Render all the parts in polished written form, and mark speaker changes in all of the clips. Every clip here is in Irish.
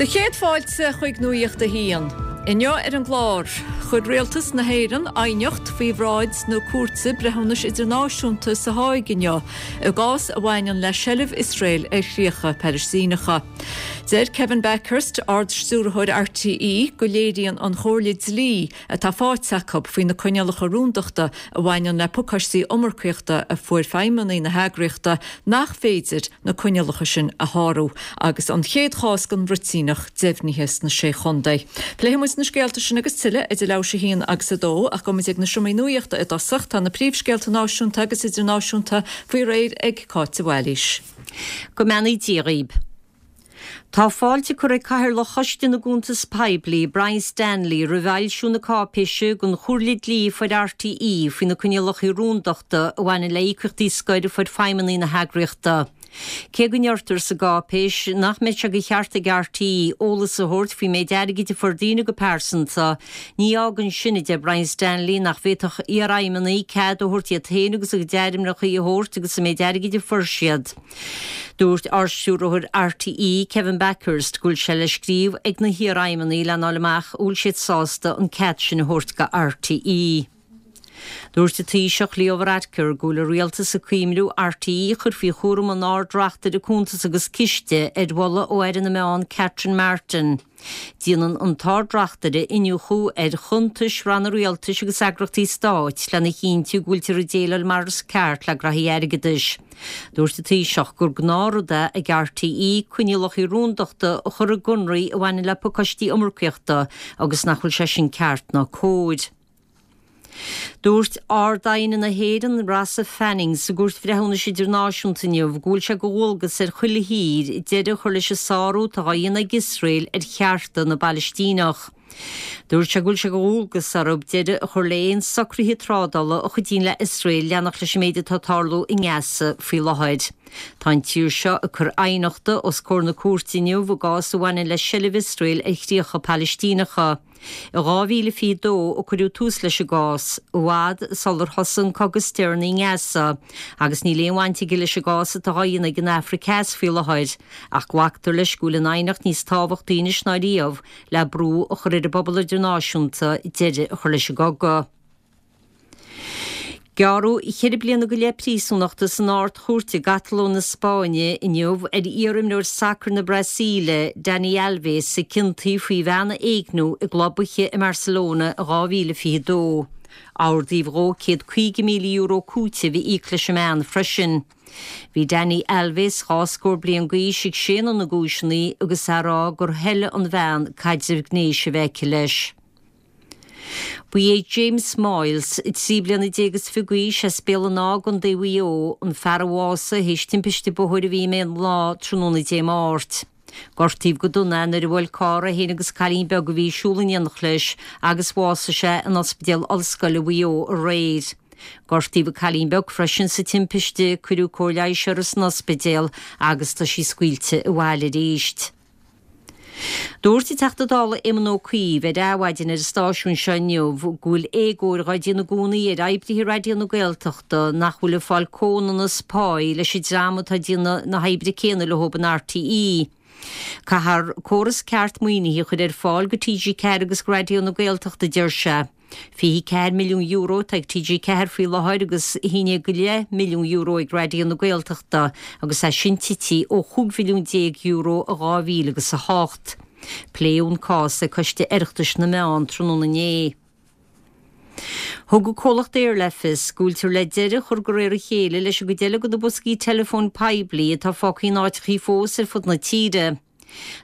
Speaker 1: Do chéad fáilte chuig Nuacht a hAon. Inniu ar an gclár, chuir Rialtas na hÉireann aighneacht faoi bhráid na Cúirte Breithiúnais Idirnáisiúnta sa Háig inniu i gcás a bhaineann le seilbh Iosrael ar chríocha Palaistíneacha. Deir Kevin Bakhurst, Ard-Stiúrthóir RTÉ, go léiríonn an chomhairle dlí atá faighte acu faoi na coinníollacha rúndachta a bhaineann le pacáistí iomarcaíochta a fuair feidhmeannaigh na heagraíochta nach féidir na coinníollacha sin a shárú agus an chéad chás den bhruitíneach deimhnithe sna Sé Chontae. Pléifidh muid na scéalta sin agus tuilleadh idir leathuair théis a haon agus a dó ach gabhfaidh muid ag na seomraí nuachta i dtosach. Tá na príomhscéalta náisiúnta agus idirnáisiúnta faoi réir ag Cáit de Bhailís.
Speaker 2: Go mbeannaí Dia dhaoib. Tá fáilte curtha ag Cathaoirleach Choiste na gCuntas Poiblí, Brian Stanley, roimh fhoilsiú na cáipéise den chomhairle dlí a fuair RTÉ faoi na coinníollacha rúndachta a bhaineann le híocaíochtaí scoir a fuair feidhmeannaigh na heagraíochta. Cé go ndeirtear sa gcáipéis nach mbeidh sé de cheart ag RTÉ eolas a thabhairt faoin méid airgid a fuair daoine go pearsanta, ní fhágann sin, a deir Brian Stanley, nach bhféadfadh iarfheidhmeannaigh cead a thabhairt iad féin agus a gcuid ainmneacha a thabhairt agus an méid airgid a fuair siad. Dúirt Ardstiúrthóir RTÉ, Kevin Bakhurst, go bhfuil sé le scríobh ag na hiarfheidhmeannaigh lena fháil amach an bhfuil siad sásta an cead sin a thabhairt go RTÉ. Dúirt an Taoiseach Leo Varadkar go bhfuil an Rialtas ag cuimhniú RTÉ a chur faoi chúram an Ard-Reachtaire Cuntas agus Ciste ar mholadh ó Aire na Meán Catherine Martin. Déanann an tArd-Reachtaire iniúchadh ar chuntais ranna rialtais agus eagraíochtaí stáit lena chinntiú go bhfuiltear ag déileáil mar is ceart le graithí airgeadais. Dúirt an Taoiseach gur gnáthrud é ag RTÉ coinníollacha rúndachta a chur i gconarthaí a bhaineann le pacáistí iomarcaíochta agus nach bhfuil sé sin ceart ná cóir. Dúirt Ard-Aighne na hÉireann, Rossa Fanning, sa gCúirt Bhreithiúnais Idirnáisiúnta inniu go bhfuil sé de dhualgas ar chuile thír deireadh a chur leis an sárú atá á dhéanamh ag Iosrael ar chearta na bPalaistíneach. Dúirt sé go bhfuil sé de dhualgas orthu deireadh a chur le haon socruithe trádála a chuidíonn le Iosrael leanacht leis an méid atá ag tarlú i nGaza faoi láthair. Tá an tír seo ag cur aighneachta os comhair na cúirte inniu i gcás a bhaineann le seilbh Iosrael ar chríocha Palaistíneacha. I 2022 a cuireadh tús leis an gcás, i bhfad sular thosaigh an cogadh is deireanaí i nGaza, agus níl aon bhaint aige leis an gcás atá á dhéanamh ag an Afraic Theas faoi láthair, ach glactar leis go bhfuil an aighneacht níos tábhachtaí anois ná riamh le brú a chur ar an bpobal idirnáisiúnta deireadh a chur leis an gcogadh. Gearradh cheithre bliana go leith príosúnachta san Ard-Chúirt i gCatalóin na Spáinne inniu ar iar-imreoir sacair na Brasaíle, Dani Alves, a ciontaíodh faoi bhean a éigniú i gclub oíche i mBarcelona in 2022. Ordaíodh dhó €150,000 cúitimh a íoc leis an mbean freisin. Bhí Dani Alves, dhá scór bliain d'aois, ag séanadh na gcúiseanna agus é ag rá gur thoiligh an bhean caidreamh gnéis a bheith aici leis. Ba é James Moyles, 13 bliana is 20 d'aois, as Béal an Átha i gContae Mhaigh Eo, an fear a bhásaigh théis timpiste bóthair a bhí i mBéal an Átha tráthnóna Dé Máirt. Gortaíodh go dona é nuair a bhuail carr é féin agus cailín beag a bhí ag siúl in éineacht leis agus bhásaigh sé in Ospidéal Ollscoile Mhaigh Eo aréir. Gortaíodh an cailín beag freisin sa timpiste, cuireadh cóir leighis uirthi san ospidéal agus tá sí scaoilte abhaile arís. Dúirt an Teachta Dála Éamon Ó Cuív ar Adhmhaidin ar an stáisiún seo inniu go bhfuil éagóir dhá déanamh i gcónaí ar oibrithe Raidió na Gaeltachta nach bhfuil ag fáil comhionannas páí leis an dream atá ag déanamh na hoibre céanna leo in RTÉ. Caithfear córas ceart maoinithe a chur ar fáil go TG4 agus go Raidió na Gaeltachta, a deir sé. €24 milliún atá ag TG4 faoi láthair agus €11.5 milliún ag Raidió na Gaeltachta agus é sin tite ó €15 mhilliún i 2008. Pléadh an cás ag Coiste Oireachtais na Meán tráthnóna inné. Thug an comhlacht Eir le fios go bhfuiltear le deireadh a chur de réir a chéile leis an gcuid eile de na boscaí teileafóin poiblí atá fágtha in áiteachaí fós ar fud na tíre.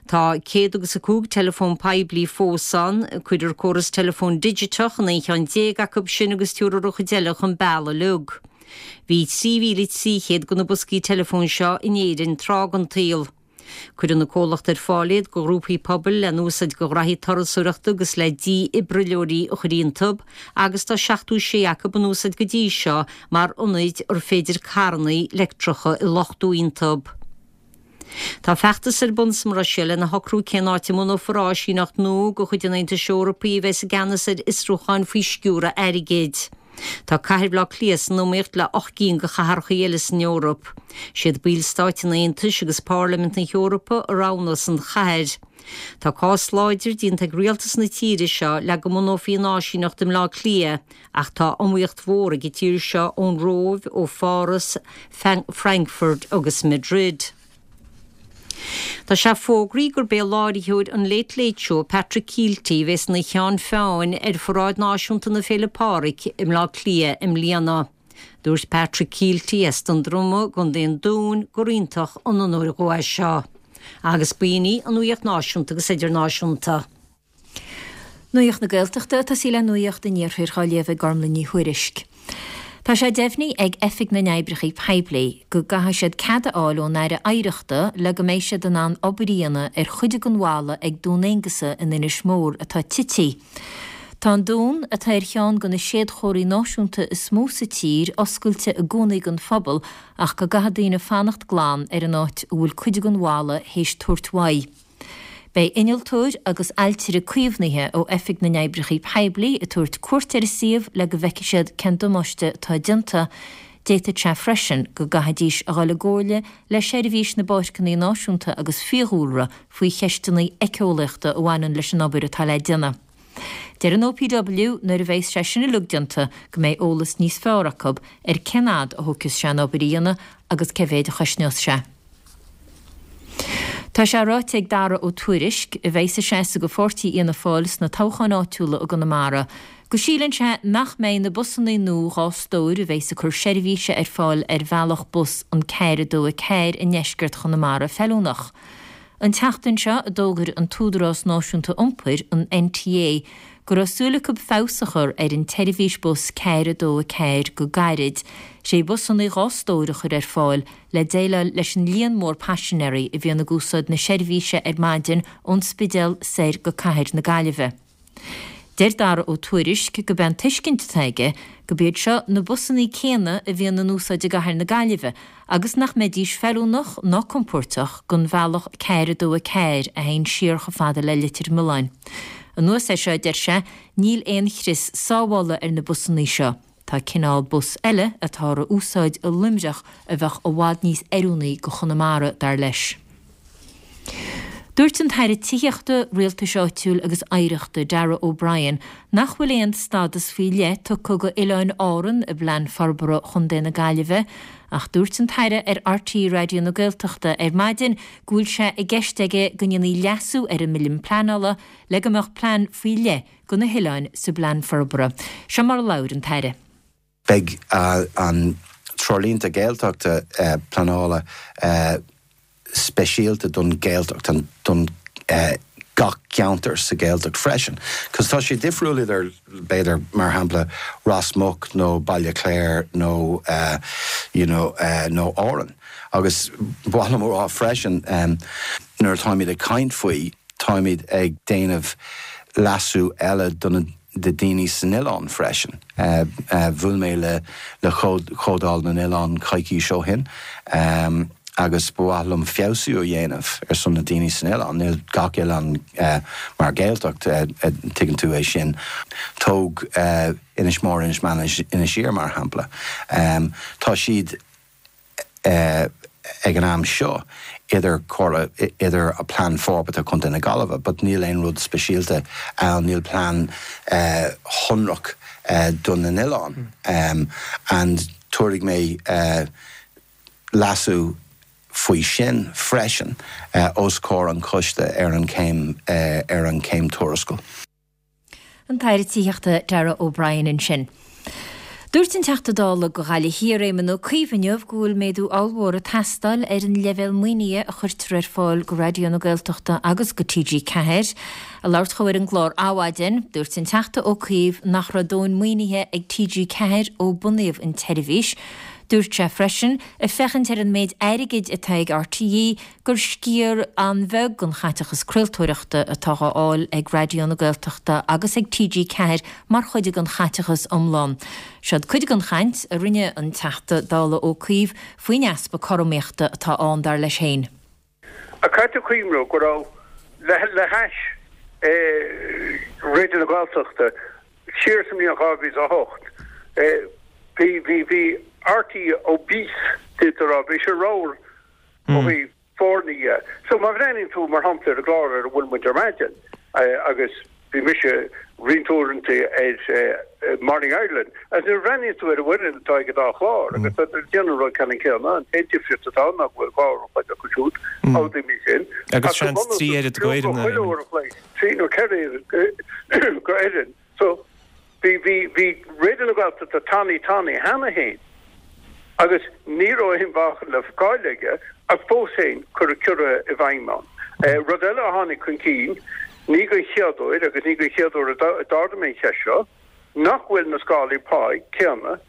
Speaker 2: Tá céad agus a 5 teileafón poiblí fós ann. Cuirfear córas teileafóin digiteach in 11 cheann acu sin agus tabharfar an chuid eile chun bealaigh uilig. Bhí 3,300 de na boscaí teileafóin seo in Éirinn tráth den tsaol. Cuireann an comhlacht ar fáil iad do ghrúpaí pobail le n-úsáid do ghraithí turasóireachta agus le dífhibrileoirí a chur iontu agus tá 76 acu in úsáid go dtí seo mar ionaid ar féidir carranna leictreacha a luchtú iontu. Tá feachtas ar bun sa mBruiséil lena shocrú cén áit a mbunófar áisíneacht nua de chuid an Aontais Eorpaigh a bheas i gceannas ar fhiosrúcháin faoi sciúradh airgid. Tá cathair Bhaile Átha Cliath san iomaíocht le 8 gcinn de chathracha eile san Eoraip. Siad ballstáit an Aontais agus Pairlimint na hEorpa a roghnós an chathair. Tá cás láidir déanta ag rialtas na tíre seo le go mbunófaí an áisíneacht i mBleá Cliath ach tá iomaíocht mhór ag an tír seo ón Róimh, ó Pháras, Frankfurt agus Madrid. Tá sé fógraithe gurb é láithreoir an Late Late Show, Patrick Kielty, a bheas ina cheann feadhain ar Pharáid Náisiúnta na Féile Pádraig i mBleá Cliath i mbliana. Dúirt Patrick Kielty as Dún Droma i gContae an Dúin gur iontach an onóir dhó é seo. Agus b'in í an nuaíocht náisiúnta agus idirnáisiúnta.
Speaker 1: Nuacht na Gaeltachta ag tosaí le Nuacht an Iarthair á léamh ag Gormlaith Ní Thuairisg. Tá sé deimhnithe ag Oifig na nOibreacha Poiblí go gcaithfidh siad cead a fháil ón Aire Oidhreachta le go mbeidh siad in ann obair a dhéanamh ar chuid den bhalla ag Dún Aonghasa in Inis Mór atá tite. Tá an dún, atá ar cheann de na séadchomharthaí náisiúnta is mó sa tír, oscailte i gcónaí don phobal ach go gcaithfidh daoine fanacht glan ar an áit a bhfuil cuid den bhalla théis tabhairt uaidh. Beidh innealtóir agus ailtire caomhnaithe ó Oifig na nOibreacha Poiblí ag tabhairt cuairt ar an suíomh le go bhfeicfidh siad cén damáiste atá déanta. D'fhéadfadh sé freisin go gcaithfidís a dhul i gcomhairle le Seirbhís na bPáirceanna Náisiúnta agus Fiadhúlra faoi cheisteanna éiceolaíochta a bhaineann leis an obair atá le déanamh. Deir an OPW nuair a bheas sé sin uilig déanta go mbeidh eolas níos fearr acu ar cén fhad a thógfas sé an obair a dhéanamh agus cé mhéid a chosnós sé. Tá sé ráite ag Dara Ó Tuairisg, a bheas ag seasamh do pháirtí Fhianna Fáil sna toghcháin áitiúla i gConamara, go síleann sé nach mbeidh na busanna nua 2 stór a bheas ag cur seirbhíse ar fáil ar bhealach bus an 4 2 4 i ndeisceart Chonamara feiliúnach. An tseachtain seo a d'fhógair an tÚdarás Náisiúnta Iompair, an NTA, go raibh súil acu feabhas a chur ar an tseirbhís bus 4 2 4 go gairid, 6 bhusanna 2 stór a chur ar fáil le déileáil leis an líon mór paisinéirí a bhíonn ag úsáid na seirbhíse ar maidin ón Spidéal soir go cathair na Gaillimhe. Deir Dara Ó Tuairisg gurb é an tuiscint atá aige gurb iad seo na busanna céanna a bhíonn in úsáid i gcathair na Gaillimhe agus nach mbeidís feiliúnach ná compóirteach don bhealach 4 2 4 a théann siar chomh fada le Leitir Mealláin. Anuas air seo, deir sé, níl aon chrios sábhála ar na busanna seo. Tá cineál bus eile atáthar a úsáid i Luimneach a bheadh i bhfad níos oiriúnaí go Chonamara, dar leis. Dúirt an tAire Tithíochta, Rialtais Áitiúil agus Oidhreachta, Darragh O'Brien, nach bhfuil aon stádas faoi leith tugtha go Oileáin Árann i bPlean Forbartha Chontae na Gaillimhe ach dúirt an tAire ar RTÉ Raidió na Gaeltachta ar maidin go bhfuil sé i gceist aige go ndéanfaí leasú ar an mBille Pleanála le go mbeadh plean faoi leith go na hoileáin sa bPlean Forbartha. Seo mar a labhair an tAire.
Speaker 3: Beidh an Treoirlínte Gaeltachta pleanála speisialta don Ghaeltacht, don gach ceantar sa Ghaeltacht freisin. Cos tá sé difriúil idir, b'fhéidir, mar shampla, Ros Muc nó Baile Chláir nó you know nó Árainn. Agus ba mhaith liom a rá freisin, nuair atáimid ag caint faoi, Táimid ag déanamh leasú eile do na daoine san oileán freisin. Bhuail mé le le Comhdháil na nOileán coicís ó shin agus ba mhaith liom feabhsú a dhéanamh ar son na daoine san oileán. Níl gach oileán mar Ghaeltacht, tuigeann tú é sin. Tóg Inis Mór, Inis Meáin, Inis Oírr mar shampla. Tá siad. ag an am seo idir comhairle, idir Plean Forbartha Chontae na Gaillimhe but níl aon rud speisialta ann, níl plean shonrach do na n-oileán and tabharfaidh mé leasú faoi sin freisin os comhair an choiste ar an chéim ar an chéim tuarascáil.
Speaker 1: An tAire Tithíochta Darragh O'Brien ansin. Dúirt an Teachta Dála do Ghaillimh Thiar Éamon Ó Cuív inniu go bhfuil méadú ollmhór ag teastáil ar an leibhéal maoinithe a chuirtear ar fáil go Raidió na Gaeltachta agus go TG4. Ag labhairt dhó ar an gclár Adhmhaidin, dúirt an Teachta Ó Cuív nach raibh dóthain maoinithe ag TG4 ó bunaíodh an tseirbhís. Dúirt sé freisin, ag féachaint ar an méid airgid atá ag RTÉ, gur sciar an-bheag den chaiteachas craoltóireachta atá á fháil ag Raidió na Gaeltachta agus ag TG4 mar chuid den chaiteachas iomlán. Seod cuid den chaint a rinne an Teachta Dála Ó Cuív faoin easpa cothromaíochta atá ann, dar leis féin.
Speaker 4: Ach caithfidh tú cuimhniú go raibh, le hais Raidió na Gaeltachta, siar sa mbliain 2008. Bhí, bhí, bhí RTÉ obese, d'fhéadfá a rá, bhí sé ramhar ó thaobh foirne dhe. So má bhreathnaíonn tú, mar shampla, ar an gclár ar a bhfuil muid ar maidin, agus bhí mise roinnt uaireanta ar Morning Ireland, agus nuair a bhreathnaíonn tú ar an bhfoireann atá ag an dá chlár, agus tá siad ag déanamh an rud ceannann céanna, an t-aon difríocht atá ann ná go bhfuil 2 uair an chloig acu siúd, amhlaidh mé sin,
Speaker 5: Agus ach go seans 3 oiread go fhoireann
Speaker 4: chuile uair an chloig, 3 nó 4 oiread go fhoireann. So, bhí, bhí, bhí Raidió na Gaeltachta tanaí tanaí cheana féin agus ní raibh aon mheáchan le fáil aige ach fós féin cuireadh ciorruithe i bhfeidhm ann. Rud eile a tháinig chun cinn, ní den chéad uair agus ní den chéad uair a d'ardaigh mé an cheist seo, nach bhfuil na scálaí páí céanna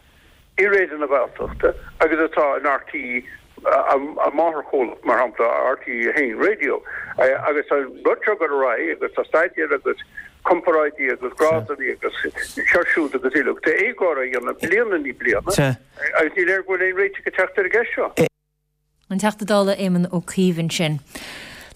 Speaker 4: i Raidió na Gaeltachta agus atá in RTÉ, a máthairchomhlacht, mar shampla, RTÉ 1 Radio. Agus tá an rud seo ag dul ar aghaidh agus tá staidéir agus comparáidí agus grádanna agus seo siúd agus uilig. Tá éagóir á dhéanamh bliain i ndiaidh bliana agus ní léir go bhfuil aon réiteach ag teacht ar an gceist seo.
Speaker 2: An Teachta Dála Éamon Ó Cuív ansin.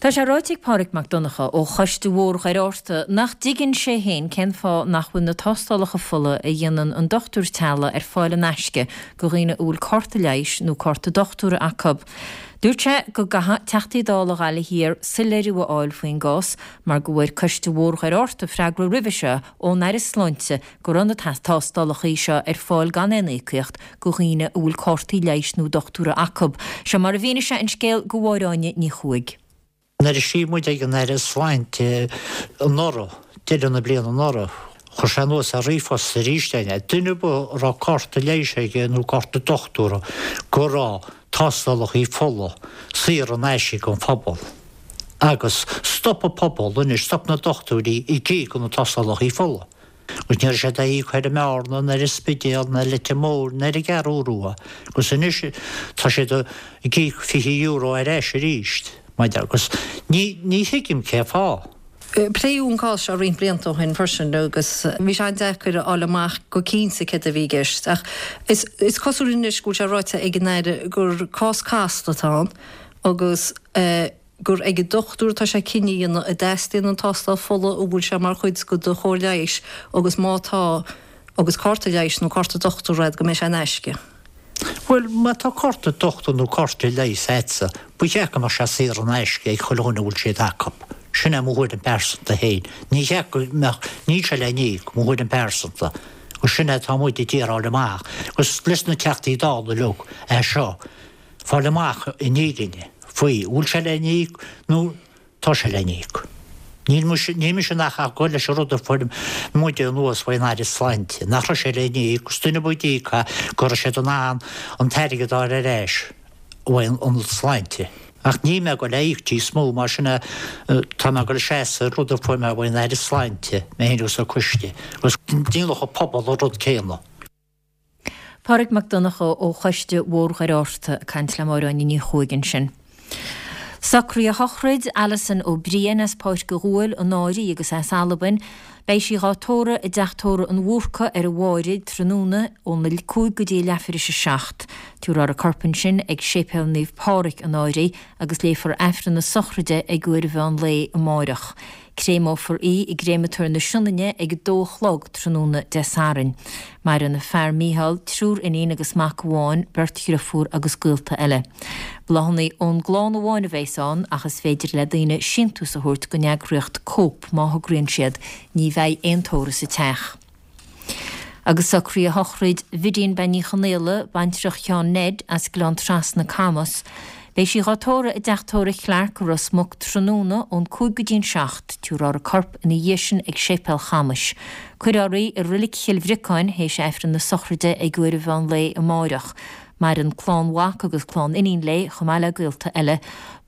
Speaker 2: Tá sé ráite ag Pádraig Mac Donncha ó Choiste Bhóthar Dhoire Fhatharta nach dtuigeann sé féin cén fáth nach bhfuil na tástálacha fola a dhéanann an dochtúir teaghlaigh ar fáil in aisce go dhaoine a bhfuil cárta leighis nó cárta dochtúra acu. Dúirt sé go gcaithfidh Teachtaí Dála Ghaillimh Thiar soiléiriú a fháil faoin gcás mar go bhfuair Coiste Bhóthar Dhoire Fhatharta freagra roimhe seo ón Aire Sláinte go raibh na tástálacha seo ar fáil gan aon íocaíocht go dhaoine a bhfuil cártaí leighis nó dochtúra acu. Seo mar a mhínigh sé an scéal go Máire Áine Ní Chuaig.
Speaker 6: Nuair a scríobh muid ag an Aire Sláinte anuraidh, deireadh na bliana anuraidh, chuir sé anuas ar ríomhphost arís é, duine ar bith a raibh cárta leighis aige nó cárta dochtúra go raibh tástálacha fola saor in aisce don phobal. Agus stop an pobal anois, stop na dochtúirí ag íoc do na tástálacha fola. Agus ní raibh siad á íoc ar an mBearna, ná ar an Spidéal, ná ar Leitir Móir, ná ar an gCeathrú Rua. Agus anois tá siad ag íoc €20 ar ais arís, maidir agus ní, ní thuigim cé fáth.
Speaker 7: Pléadh an cás seo roinnt blianta ó shin freisin agus bhí sé an-deacair a fháil amach go cinnte céard a bhí i gceist ach is cosúil anois go bhfuil sé ráite ag an Aire gur cás casta atá ann agus gur ag an dochtúir atá sé cinneadh a dhéanamh an dteastaíonn an tástáil fola, an bhfuil sé mar chuid de do chóir leighis agus má tá, agus cárta leighis nó cárta dochtúra agat, go mbeidh sé in aisce.
Speaker 6: Bhuel, má tá cárta dochtúra nó cárta leighis agatsa, ba cheart go mbeadh sé saor in aisce ag chuile dhuine a bhfuil siad acu. Sin é mo thuairim pearsanta féin. Ní cheart go mbeadh, níl sé le n-íoc, mo thuairim pearsanta. Agus sin é atá muid ag iarraidh fháil amach. Agus leis na Teachtaí Dála uilig é seo. fáil amach an fhírinne faoi, an bhfuil sé le n-íoc nó tá sé le n-íoc. Níl mise, níl mise ach ag gabháil leis an rud a fuair muide anuas faoin Aire Sláinte, nach raibh sé le n-íoc, agus duine ar bith a d'íoc é, go raibh siad in ann an t-airgead a fháil ar ais uaidh an Sláinte. Ach níl mé ag gabháil a íoc níos mó, mar sin é, tá mé ag gabháil a seasamh ar rud a fuair mé uaidh an Aire Sláinte, mé féin agus an coiste, agus déanfadh an pobal an rud céanna.
Speaker 2: Pádraig Mac Donncha ó Choiste Bhóthar Dhoire Fhatharta ag caint le Máire Áine Ní Chuaig ansin. Socruithe shochraid Alison Ó Briain as Páirc a' Ghuail, an Áirí agus as Albain. Beidh sí dhá tórramh i dTeach Tórraimh an Bhúrcaigh ar an Mháraigh tráthnóna óna 5 go dtí a leathuair théis a 7. Tabharfar a corp ansin ag Séipéal Naomh Pádraig, an Áirí, agus léifear Aifreann na sochraide ag uair an mheán lae amáireach. Créamófar í i gCréamatóir na Sionainne ag a dó a chlog tráthnóna Dé Sathairn. Maireann a fear Mícheál, triúr iníon agus mac amháin, beirt dhriofúr agus gaolta eile. Bláthanna ón gclann amháin a bheas ann ach is féidir le daoine síntiús a thabhairt don eagraíocht Cope má thograíonn siad. Ní bheidh aon tórramh sa teach. Agus socruithe shochraid Bhidín Bean Ní Chonaola, baintreach Sheáin Ned, as Gleann Trasna, Camas. Beidh sí dhá tórramh i dTeach Tórraimh Clarke i Ros Muc tráthnóna ón 5 go dtí an 7. Tabharfar a corp ina dhiaidh sin ag Séipéal Chamais. Cuirfear í i Roilic Chill Bhriocáin théis Aifreann na sochraide ag uair an mheán lae amáireach. Maireann clann mhac agus clann iníon léi, chomh maith le gaolta eile.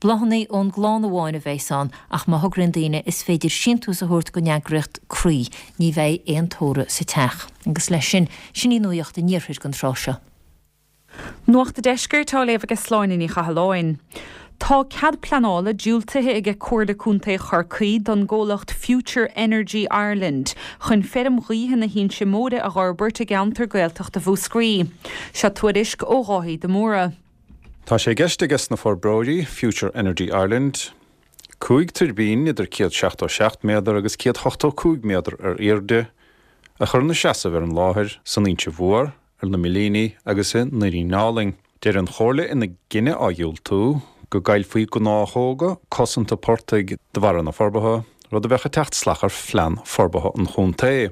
Speaker 2: Bláthanna ón gclann amháin a bheas ann, ach má thograíonn daoine is féidir síntiús a thabhairt don eagraíocht Croí. Ní bheidh aon tórramh sa teach. Agus leis sin, sin í nuacht an iarthair don tráth seo.
Speaker 8: Nuacht an Deiscirt á léamh aige Sláine Ní Chathalláin. Tá cead pleanála diúltaithe aige Comhairle Contae Chorcaí don gcomhlacht Future Energy Ireland chun feirm ghaoithe na hInse Móire a dh'fhorbairt i gceantar Gaeltachta Mhúscraí. Seo tuairisc ó Dháithí de Mórdha.
Speaker 9: Tá sé i gceist aige sna forbróirí, Future Energy Ireland, 5 tuirbín idir 177 méadar agus 185 méadar ar airde. a chur ina seasamh ar an láthair san Inse Mhór, ar na Millíní agus i nDoirín Álainn. Deir an Chomhairle ina gcinneadh á dhiúltú, go gcaillfí gnáthóga cosanta portaigh de bharra na forbartha, rud a bheadh ag teacht salach ar phlean forbartha an chontae.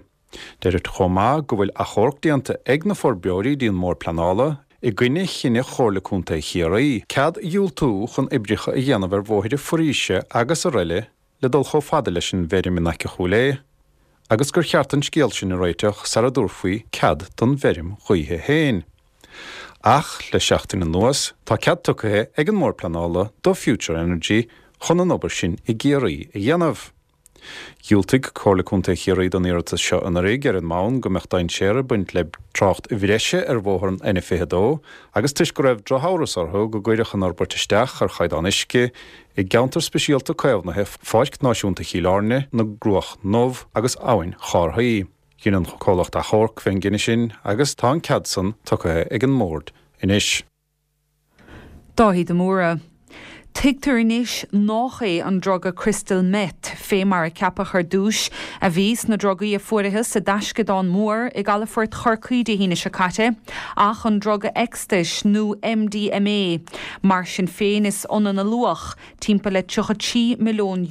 Speaker 9: Deirtear chomh maith go bhfuil achomharc déanta ag na forbróirí dtí an mBord Pleanála i gcoinne chinneadh Chomhairle Contae Chiarraí cead a dhiúltú chun oibreacha a dhéanamh ar bhóithre foraoise agus araile le dul chomh fada leis an bhfeirm in aice Chúil Aodha agus gur cheart an scéal sin a réiteach sara dtabharfaí cead don bhfeirm ghaoithe féin. Ach le seachtain anuas tá cead tugtha ag an mBord Pleanála do Future Energy chun an obair sin i gCiarraí a dhéanamh. Dhiúltaigh Comhairle Contae Chiarraí don iarratas seo anuraidh ar an mbonn go mbeadh dainséar ag baint le trácht bhreise ar bhóthar an N22 agus toisc go raibh drochamhras orthu go gcuirfeadh an fhorbairt isteach ar chaighdeán uisce i gceantar speisialta caomhnaithe Pháirc Náisiúnta Chill Airne, na gCruach nDubh agus Abhainn Chárthaí. Dhein an comhlacht achomharc fén gcinneadh sin agus tá an cead san tugtha ag an mBord anois.
Speaker 8: Dáithí de Mórdha. Tuigtear anois nách é an druga crystal meth, fé mar a ceapadh ar dtúis, a bhí sna drugaí a fuarathas i dtaisceadán mór i gcalafort Chorcaí Dé hAoine seo caite, ach an druga ecstais nó MDMA. Mar sin féin is ionann a luach, timpeall le €33 milliún.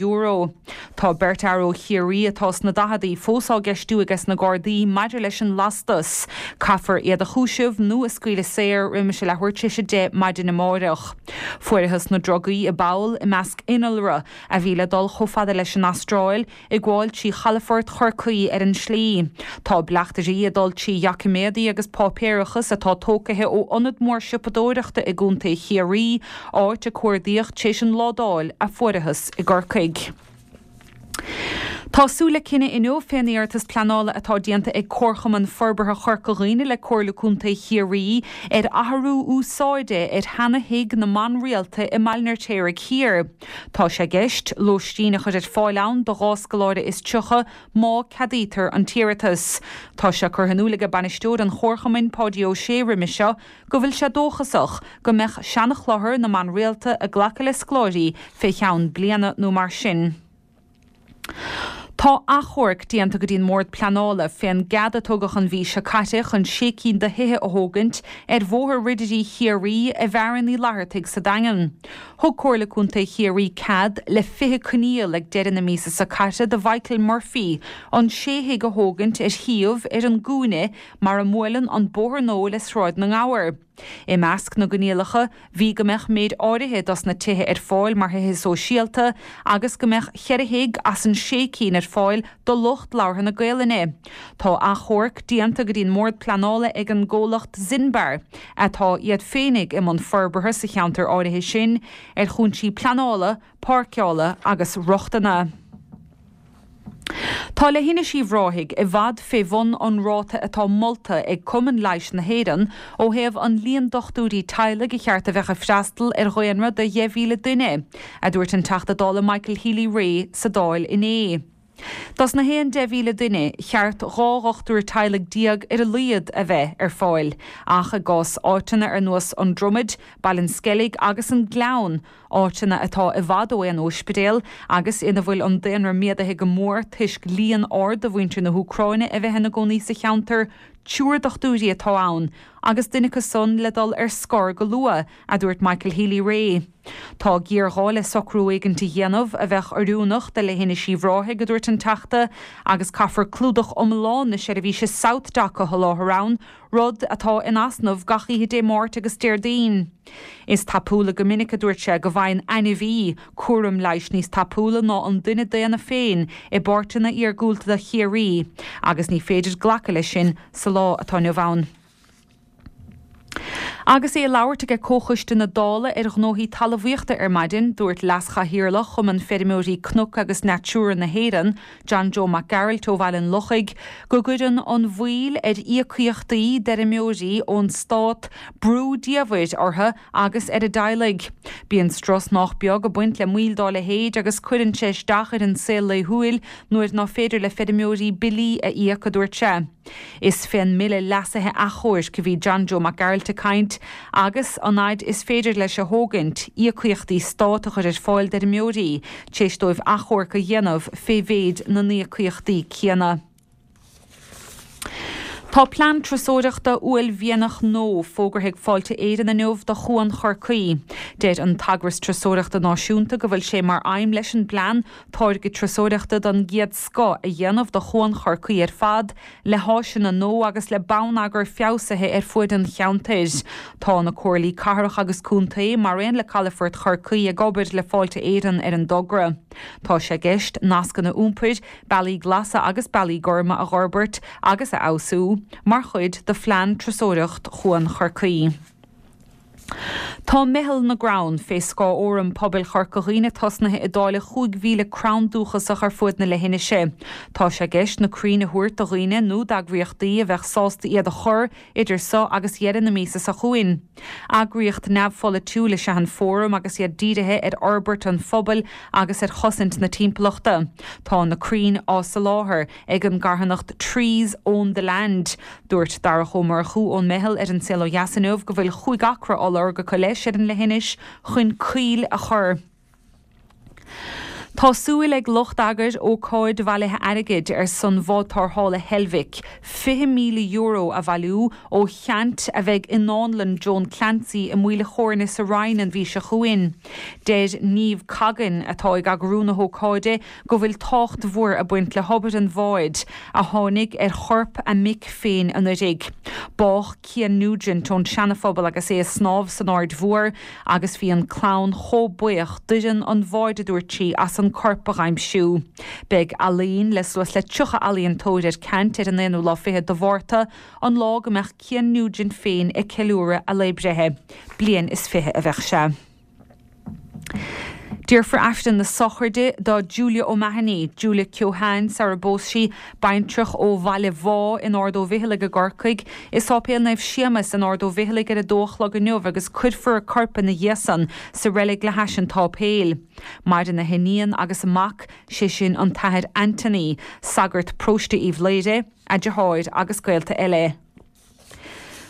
Speaker 8: Tá beirt fhear ó Chiarraí atá sna daicheadaí fós á gceistiú ages na Gardaí maidir leis an lastas. Caithfear iad a chúiseamh nó a scaoileadh saor roimis a leathuair tar éis a 10 maidin amáireach. Fuarathas na drugaí i bpoll i measc innealra a bhí le dul chomh fada leis an Astráil, ag gabháil trí chalafort Chorcaí ar an slí. Tá bleachtairí ag dul trí dhoiciméadaí agus páipéarachas atá tócaithe ó ionad mór siopadóireachta i gContae Chiarraí, áit a cuardaíodh tar éis an ládáil a fuarathas i gCorcaigh. Tá súil le cinneadh inniu fén iarratas pleanála atá déanta ag Comharchumann Forbartha Chorca Dhuibhne le Comhairle Contae Chiarraí ar athrú úsáide ar sheana-thigh na mban rialta i mBaile an Fheirtéaraigh Thiar. Tá sé i gceist lóistín a chur ar fáil ann do dhá scoláire is 30 má ceadaítear an t-iarratas. Tá sé curtha in iúl aige bainisteoir an Chomharchumainn, Páidí Ó Sé roimhe seo go bhfuil sé dóchasach go mbeadh seana-chlochar na mban rialta ag glacadh le scoláirí fé cheann bliana nó mar sin. Tá achomharc déanta go dtí an mBord Pleanála fén gcead a tugadh an mhí seo caite chun sé cinn de thithe a thógaint ar Bhóthar Ridirí Chiarraí i bhFearann Uí Fhlathartaigh sa Daingean. Thug Comhairle Contae Chiarraí cead le 20 coinníoll ag deireadh na míosa seo caite do Mhichael Murphy an sé thigh a thógaint ar shuíomh ar an gcúinne mar a mbuaileann an bóthar nua le Sráid na nGabhar. I measc na gcoinníollacha bhí go mbeadh méid áirithe dos na tithe ar fáil mar thithe sóisialta agus go mbeadh cheithre thigh as an sé cinn ar fáil do lucht labhartha na Gaolainne. Tá achomharc déanta go dtí an mBord Pleanála ag an gcomhlacht Zinbar, atá iad féinig i mbun forbartha sa cheantar áirithe sin, ar chúinsí pleanála, páirceála agus rochtana. Tá Leithinis Uíbh Ráthaigh i bhfad fé bhun an ráta atá molta ag Cumann Leighis na hÉireann ó thaobh an líon dochtúirí teaghlaigh a cheart a bheadh ag freastal ar dhaonra de 10,000 duine, a dúirt an Teachta Dála Michael Healy-Rae sa Dáil inné. Dos na haon 10,000 duine, cheart 12 dhochtúir teaghlaigh ar a laghad a bheith ar fáil, ach i gcás áiteanna ar nós An Dromaid, Baile an Sceilg agus an Gleann, áiteanna atá i bhfad ó aon óispidéal agus ina bhfuil an daonra méadaithe go mór toisc líon ard de mhuintir na hÚcráine a bheith ina gcónaí sa cheantar, triúr dochtúirí atá ann agus duine acu san le dul ar scor go luath, a dúirt Michael Healy-Rae. Tá géarghá le socrú éigint a dhéanamh a bheadh oiriúnach do Leithinis Uíbh Ráthaigh, a dúirt an Teachta, agus caithfear clúdach iomlán na seirbhíse SouthDoc a sholáthar ann, rud atá in easnamh gach oíche Dé Máirt agus Déardaoin. Is tapúla go minic, a dúirt sé, go bhfaigheann ainmhí cúram leighis níos tapúla ná an duine daonna féin i bpáirteanna iargúlta de Chiarraí agus ní féidir glacadh leis sin sa lá atá inniu ann. Agus é ag labhairt aige Comhchoiste na Dála ar Ghnóthaí Talmhaíochta ar maidin, dúirt Leas-Chathaoirleach Chumann Feirmeoirí Cnoc agus Natura na hÉireann, John Joe Mac Gearailt ó Bhaile an Lochaigh, go gcuireann an mhoill ar íocaíochtaí d'fheirmeoirí ón stát brú diamhair orthu agus ar a dteaghlaigh. Bíonn strus nách beag ag baint le moill dá leithéid agus cuireann sé isteach ar an saol laethúil nuair ná féidir le feirmeoirí billí a íoc, a dúirt sé. Is fén mBille Leasaithe Achomhairc a bhí John Joe Mac Gearailt ag caint agus an fhaid is féidir leis a thógaint, íocaíochtaí stát a chur ar fáil d'fheirmeoirí tar éis dóibh achomharc a dhéanamh fé mhéid na n-íocaíochtaí céanna. Tá plean turasóireachta uaillmhianach nua fógartha ag Fáilte Éireann inniu do Chuan Chorcaí. Deir an t-eagras turasóireachta náisiúnta go bhfuil sé mar aidhm leis an bplean táirge turasóireachta den gcéad scoth a dhéanamh de Chuan Chorcaí ar fad, le háiseanna nua agus le bonneagar feabhsaithe ar fuaid an cheantair. Tá na comhairlí cathrach agus contae, mar aon le Calafort Chorcaí ag obair le Fáilte Éireann ar an dtogra. Tá sé i gceist nascanna iompair, bealaí glasa agus bealaí gorma a dh'fhorbairt agus a fheabhsú mar chuid de phlean turasóireacht Chuan Chorcaí. Tá Meitheal na gCrann, fé scáth Fhóram Pobail Chorca Dhuibhne tosnaithe ag dáileadh 5,000 crann dúchasach ar fuaid na leithinise. Tá sé i gceist na crainn a thabhairt do dhaoine nó d'eagraíochtaí a bheadh sásta iad a chur idir so agus dheireadh na míosa seo chugainn. Eagraíocht neamhpholaitiúil is ea an Fóram agus iad dírithe ar fhorbairt an phobail agus ar chosaint na timpeallachta. Tá na crainn á soláthar ag an gcarthanacht Trees Own the Land. Dúirt Darach Ó Murchú ón Meitheal ar An Saol Ó Dheas inniu go bhfuil chúig acra á lorg acu leis ar an leithinis chun coill a chur. Tá súil ag lucht eagair ócáid bhailithe airgid ar son bhád tarrthála Heilbhic, €20,000 a bhailiú ó cheant a bheidh i nDánlann Joan Clancy i Maoil a' Chóirne sa Rinn an mhí seo chugainn. Deir Niamh Coggan, atá ag eagrú na hócáide, go bhfuil tábhacht mhór ag baint le hobair an bháid, a tháinig ar chorp a mic féin anuraidh. Bádh Cian Nugent ón Seanaphobal agus é ag snámh san Aird Mhór agus bhí an clann chomh buíoch d'fhoireann an bháid a dúirt sí as an corp a dh'aimsiú. Beidh ealaín le suas le 30 ealaíontóir ar ceant ar an aonú lá fichead de Mhárta, an lá go mbeadh Cian Nugent féin ag ceiliúradh a lae breithe. Bliain is fiche a bheadh sé. Déarfar Aifreann na sochraide do Julia O'Mahony, Julia Keohane sara bpós sí, baintreach ó Bhaile Bhá in Ard Ó Bhficheallaigh i gCorcaigh, i Sáipéal Naomh Séamas in Ard Ó Bhficheallaigh ar a dó a chlog inniu agus cuirfear a corp ina dhiaidh san sa reilig le hais an tsáipéil. Maireann a hiníon agus a mac, sé sin an tAthair Anthony, sagart paróiste Uíbh Laoire, a deartháir agus gaolta eile.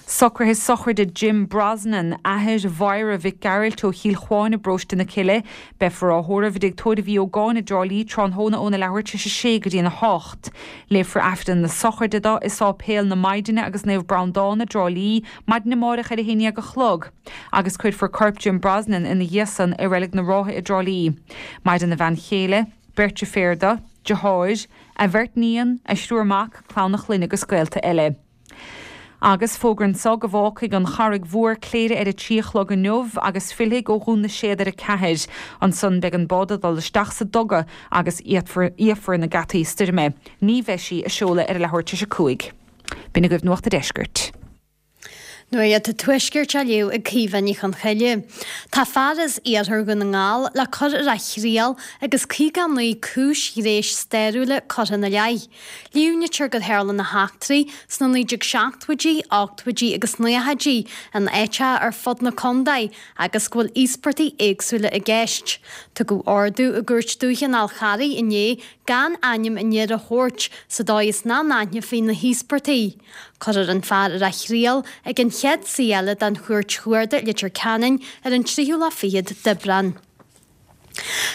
Speaker 8: Socruithe sochraide Jim Brosnan, athair Mháire Mhic Gearailt ó Chill Chuáin i bparóiste na Cille. Beifear á thórramh i dTigh Tórraimh Uí Ógáin i dTrá Lí tráthnóna óna leathuair tar éis a sé go dtí'n 8. Léifear Aifreann na sochraide dó i Sáipéal na Maighdine agus Naomh Breandán i dTrá Lí maidin amáireach ar a haon dhéag a chlog agus cuirfear corp Jim Brosnan ina dhiaidh san i Reilig na Rátha i dTrá Lí. Maireann a bhean chéile, beirt deirféar dó, deartháir, a bheirt níon, a thriúr mac, clann a chlainne agus gaolta eile. Agus fógra anso go bhfágfaidh an Charraig Mhór Cléire ar a trí a chlog inniu agus fillfidh ó Dhún na Séad ar a ceathair. Ansan beidh an bád ag dul isteach sa duga agus íocfar na geataí stoirme. Ní bheidh sí ag seoladh ar a leathuair tar éis a 5. B'in agaibh Nuacht a' Deiscirt.
Speaker 10: Nuacht an Tuaiscirt á léamh ag Caoimhe Ní Chonchoille. Tá fear as iarthar Dhún na nGall le cur ar a thriail agus 59 cúis ghnéis stairiúla curtha ina leith. Líomhnaítear gur tharla na heachtraí sna 1970idí, 80idí agus 90idí in áiteacha ar fud na contae agus go bhfuil íospartaigh éagsúla i gceist. Tugadh ordú i gCúirt Dúiche an Fhál Charraigh inné gan ainm an fhir a thabhairt sa dóigh is nach n-aithneofaí na híospartaigh. Cuirfear an fear ar a thriail ag an chéad suí eile den Chúirt Chuarda i Leitir Ceanainn ar an tríú lá fichead d'Aibreán.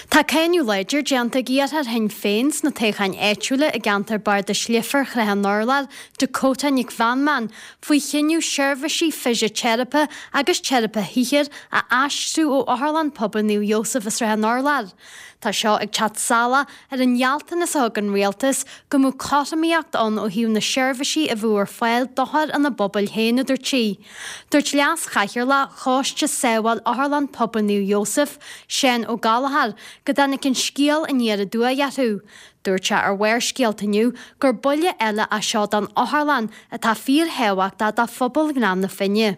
Speaker 10: Tá cáineadh láidir déanta ag iarrthóir Shinn Féin sna toghcháin áitiúla i gceantar Bardais Leifear Shraith an Urláir, Dakota Nic Mheanman, faoi chinneadh seirbhísí fisiteiripe agus teiripe shaothair a aistriú ó Otharlann Pobail Naomh Iósaf i Srath an Urláir. Tá seo ag teacht salach ar an ghealltanas a thug an Rialtas go mbeadh cothromaíocht ann ó thaobh na seirbhísí a bheadh ar fáil d'othair ina bpobail féin, a dúirt sí. Dúirt Leas-Chathaoirleach Choiste Sábháil Otharlann Pobail Naomh Iósaf, Seán Ó Gallchóir, go dtáinig an scéal aniar aduaidh orthu. Dúirt sé ar Bharrscéalta inniu gur buille eile é seo don otharlann atá fíorthábhachtach do phobal Ghleann na Finne.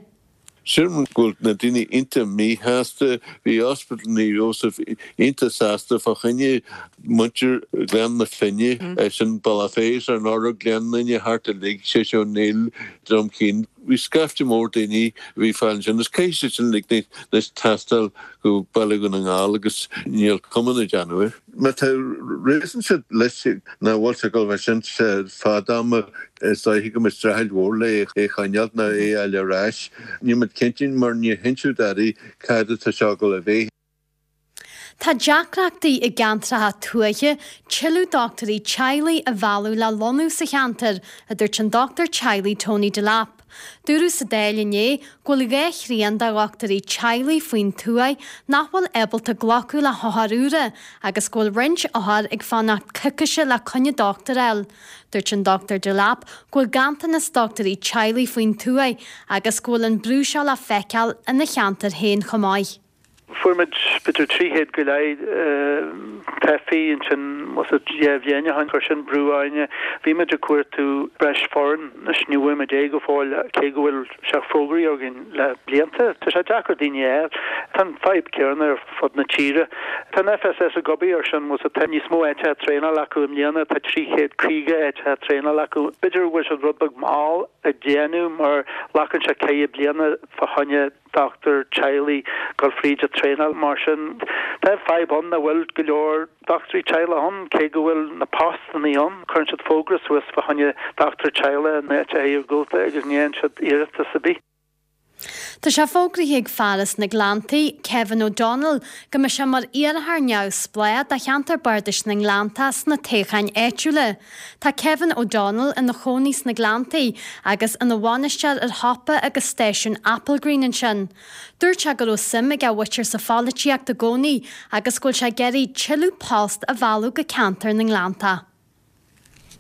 Speaker 11: Sílim go bhfuil na daoine iontach míshásta. Bhí Ospidéal Naomh Iósaf iontach sásta fá choinne muintir Ghleann na Finne, sin Bealach Féich, Srath an Urláir, Gleann Fhinne, thart uilig, Séiséal Ó Néill, Droim Cinn. Bhí scaifte mór daoine a bhí fáil ansin agus caithfidh siad sin uilig anois taisteal go Baile Dhún na nGall agus níl cuma na déanamh air. Má tá réasún siad leis nach bhfuil sé ag dul bheith sin fad ama, is dóiche go mbeidh streachailt mhór le é a choinneáilt nó é a fháil ar ais. Níl muid cinnte mar níor hinseadh dadaí cad atá seo ag dul a bheith.
Speaker 10: Tá deacrachtaí i gceantracha tuaithe tuilleadh dochtúirí teaghlaigh a mhealladh le lonnú sa cheantar, a dúirt an dochtúir teaghlaigh Tony Delap. Dúradh sa Dáil inné go bhfuil 2 thrian de dhochtúirí teaghlaigh faoin tuaith nach bhfuil ábalta glacadh le hothair úra agus go bhfuil roinnt othar ag fanacht coicíse le coinne dochtúir a fháil. Dúirt an Dr Delap go bhfuil ganntanas dochtúirí teaghlaigh faoin tuaith agus go bhfuil an brú seo le feiceáil ina cheantar féin chomh maith.
Speaker 12: Fuair muid b'fhéidir 300 go leith teifigh ansin was it 2 bhliain ó shin, chuir sin brú orainne. Bhí muid ag cuartú breis foireann, anois ní bhfuair muid é go fóill cé go bhfuil sé fógraithe againn le blianta. Tá sé deacair daoine a fháil. Tá an fadhb céanna ar fud na tíre. Tá an FSS ag obair ar sin, was it tá níos mó áiteacha traenála acu i mbliana, tá 350 áiteacha traenála acu. B'fhéidir go bhfuil siad rud beag mall ag déanamh mar glacann sé ceithre bliana fá choinne dochtúir teaghlaigh dul fríd an traenáil. Mar sin, tá fadhb ann nach bhfuil go leor dochtúirí teaghlaigh ann, cé go bhfuil na postannaí ann. Cuireann siad fógra suas fá choinne dochtúir teaghlaigh in áiteacha iargúlta agus ní fhaigheann siad iarratas ar bith.
Speaker 10: Tá sé fógraithe ag fear as na Gleanntaí, Kevin O'Donnell, go mbeidh sé mar iarrthóir neamhspleách do cheantar bardais na nGleanntach sna toghcháin áitiúla. Tá Kevin O'Donnell ina chónaí sna Gleanntaí agus ina bhainisteoir ar shiopa agus stáisiún Applegreen ansin. Dúirt sé go raibh suim ag a mhuintir sa pholaitíocht i gcónaí agus go bhfuil sé ag iarraidh tuilleadh post a mhealladh go ceantar na nGleanntach.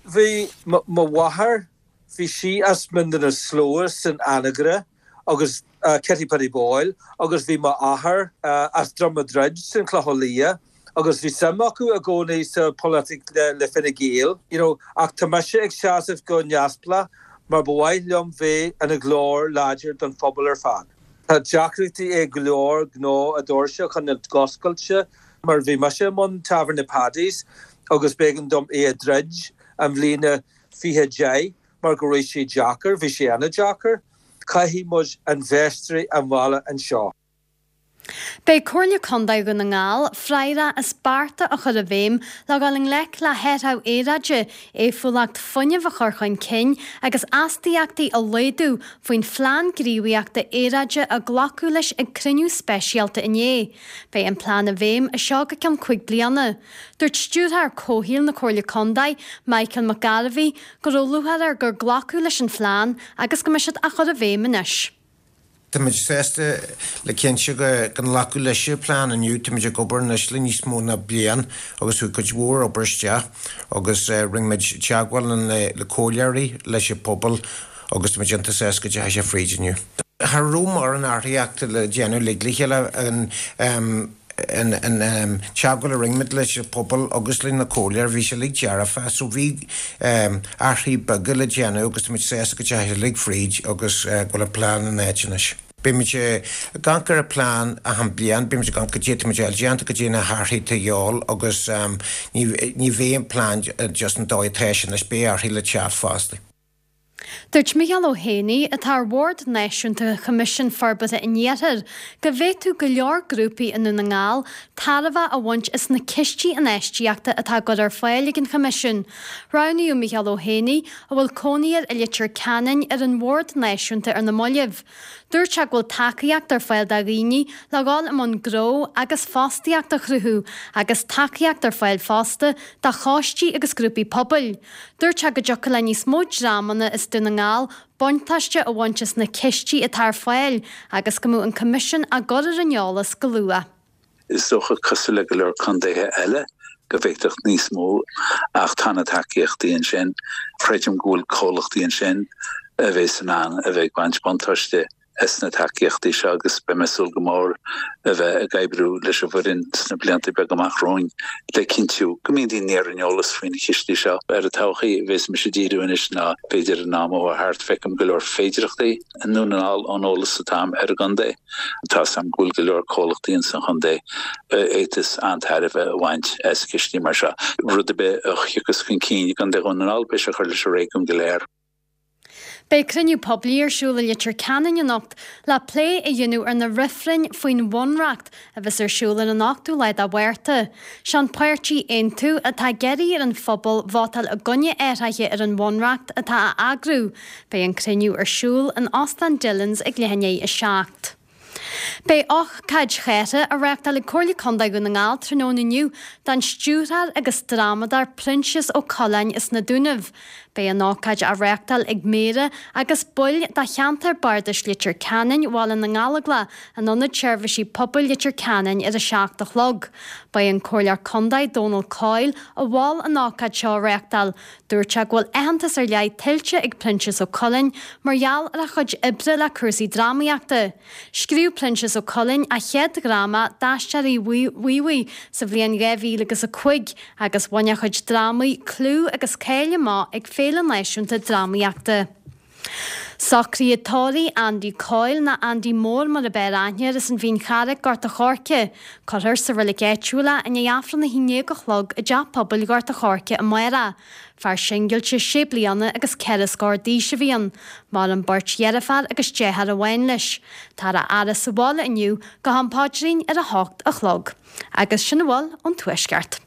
Speaker 13: Bhí mo mháthair, bhí sí as Mín na Slua san Anagaire agus Kitty Paddy Boyle agus bhí m'athair as Droim a' Druid san Chlochán Liath agus bhí suim acu i gcónaí sa pholaitíocht le Fine Gael you know ach tá mise ag seasamh go neamhspleách mar ba mhaith liom bheith ina ghlór láidir don phobal ar fad. Tá deacrachtaí ag go leor gnó a doirse a choinneáil oscailte mar bhí mise i mbun Tábhairne Paddy's agus b'éigean dom é a dhruid an bhliain 2010 mar go raibh sé deacair, bhí sé an-deacair. Caithfidh muid infheisteoirí a mhealladh anseo.
Speaker 10: Beidh Comhairle Contae Dhún na nGall freagrach as bearta a chur i bhfeidhm le dhul i ngleic le hathrú aeráide, éifeachtúlacht fuinnimh a chur chun cinn agus astaíochtaí a laghdú faoin Phlean Gníomhaíochta Aeráide a glacadh leis ag cruinniú speisialta inné. Beidh an plean i bhfeidhm as seo go ceann 5 bliana. Dúirt Stiúrthóir Comhshaoil na Comhairle Contae, Michael McGarvey, go raibh lúcháir air gur glacadh leis an phlean agus go mbeidh siad á chur i bhfeidhm anois.
Speaker 14: Táimid sásta le cinnte go nglacadh leis an plean inniu. Táimid ag obair anois le níos mó ná bliain agus chuaigh cuid mhór obair isteach agus rinne muid teagmháil le comhairleoirí, leis an pobal agus táimid iontach sásta go dteachaigh sé fríd inniu. Cha raibh mórán athraíochta le déanamh uilig le chéile. An teagmháil a rinne muid leis an pobal agus leis na comhairleoirí, bhí sé uilig dearfa so bhí athruithe beaga le déanamh agus tá muid sásta go dteachaigh sé uilig fríd agus go bhfuil an plean in áit anois. Beidh muid ag amharc ar an plean achan bliain, beidh muid ag amharc goidé atá muid a fháil déanta, goidé na hathruithe atá a dhíobháil agus ní bheidh an plean just an dóigh atá sé anois, beidh athruithe le teacht fosta.
Speaker 10: Dúirt Micheál Ó hÉanaí, atá ar Bhord Náisiúnta Choimisiún Forbartha an Iarthair, go bhféadfadh go leor grúpaí i nDún na nGall tairbhe a bhaint as na cistí infheistíochta atá á gcur ar fáil ag an Choimisiún. Roghnaíodh Micheál Ó hÉanaí, a bhfuil cónaí air i Leitir Ceanainn, ar an Bhord Náisiúnta ar na mallaibh. Dúirt sé go bhfuil tacaíocht ar fáil do dhaoine le dhul i mbun gnó agus fostaíocht a chruthú agus tacaíocht ar fáil fosta do choistí agus grúpaí pobail. Dúirt sé go dtiocfadh le níos mó dreamanna as Dún na nGall buntáiste a bhaint as na cistí atá ar fáil agus go mbeadh an Coimisiún á gcur ar an eolas go luath.
Speaker 15: Is dócha, cosúil le go leor contaetha eile, go bhféadfadh níos mó, ach tá na tacaíochtaí ansin. Creidim go bhfuil comhlachtaí ansin a bheas in ann a bheith ag baint buntáiste as na tacaíochtaí seo agus beidh mé ag súil go mór a bheith ag oibriú leis an bhfoireann sna blianta beaga amach romhainn le cinntiú go mbíonn daoine ar an eolas faoi na cistí seo. Ar an todhchaí a bheas mise ag díriú anois ná b'fhéidir an am atá thart, feicim go leor féidireachtaí i nDún na nGall ón eolas atá agam ar an gcontae. Tá 's agam go bhfuil go leor comhlachtaí ins an chontae a fhéadfas an-tairbhe a bhaint as cistí mar seo. Rud ar bith a thiocfas chun cinn i gContae Dhún na nGall beidh sé ag cur leis an réigiún go léir.
Speaker 10: Beidh cruinniú poiblí ar siúl i Leitir Ceanainn anocht le plé a dhéanamh ar na reifrinn faoin Bhunreacht a bheas ar siúl ar an 8ú lá de Mhárta. Sé an páirtí Aontú atá ag iarraidh ar an phobal vótáil i gcoinne athraithe ar an Bhunreacht atá á eagrú. Beidh an cruinniú ar siúl in Óstán Dillons ag leath i ndiaidh 7. Beidh ócáid chártha á reáchtáil ag Comhairle Contae Dhún na nGall tráthnóna inniu don stiúrthóir agus drámadóir Proinsias Ó Coileáin as na Dúnaibh. Beidh an ócáid á reáchtáil ag Méara agus baill de cheantar Bardais Leitir Ceanainn, Bhaile na nGallóglach, in Ionad Seirbhísí Pobail Leitir Ceanainn ar a 7 a chlog. Ba é an Comhairleoir Contae Dónal Coyle a mhol an ócáid seo a reáchtáil. Dúirt sé go bhfuil aitheantas ar leith tuillte ag Proinsias Ó Coileáin mar gheall ar a chuid oibre le cúrsaí drámaíochta. Scríobh Proinsias Ó Coileáin a chéad dhráma, D'Aisteoirí Mhuimhaigh, sa bhliain 2000 agus 5 agus bhain a chuid drámaí clú agus cáil amach ag Féile Náisiúnta Drámaíochta. Socruithe tórraimh Andy Coyle, nó Andy Mór mar ab fhearr aithne air, as an Mhín Charraic, Gort a' Choirce. Cuirfear sa reilig áitiúil é i ndiaidh Aifreann a 11 a chlog i dTeach Pobail Ghort a' Choirce amárach. Fear singilte sé bliana agus ceithre scór d'aois a bhí ann. Maireann beirt dheirféar agus deartháir amháin leis. Táthar á fhaire sa bhaile inniu go ham paidrín ar a hocht a chlog. Agus sin a bhfuil ón Tuaisceart.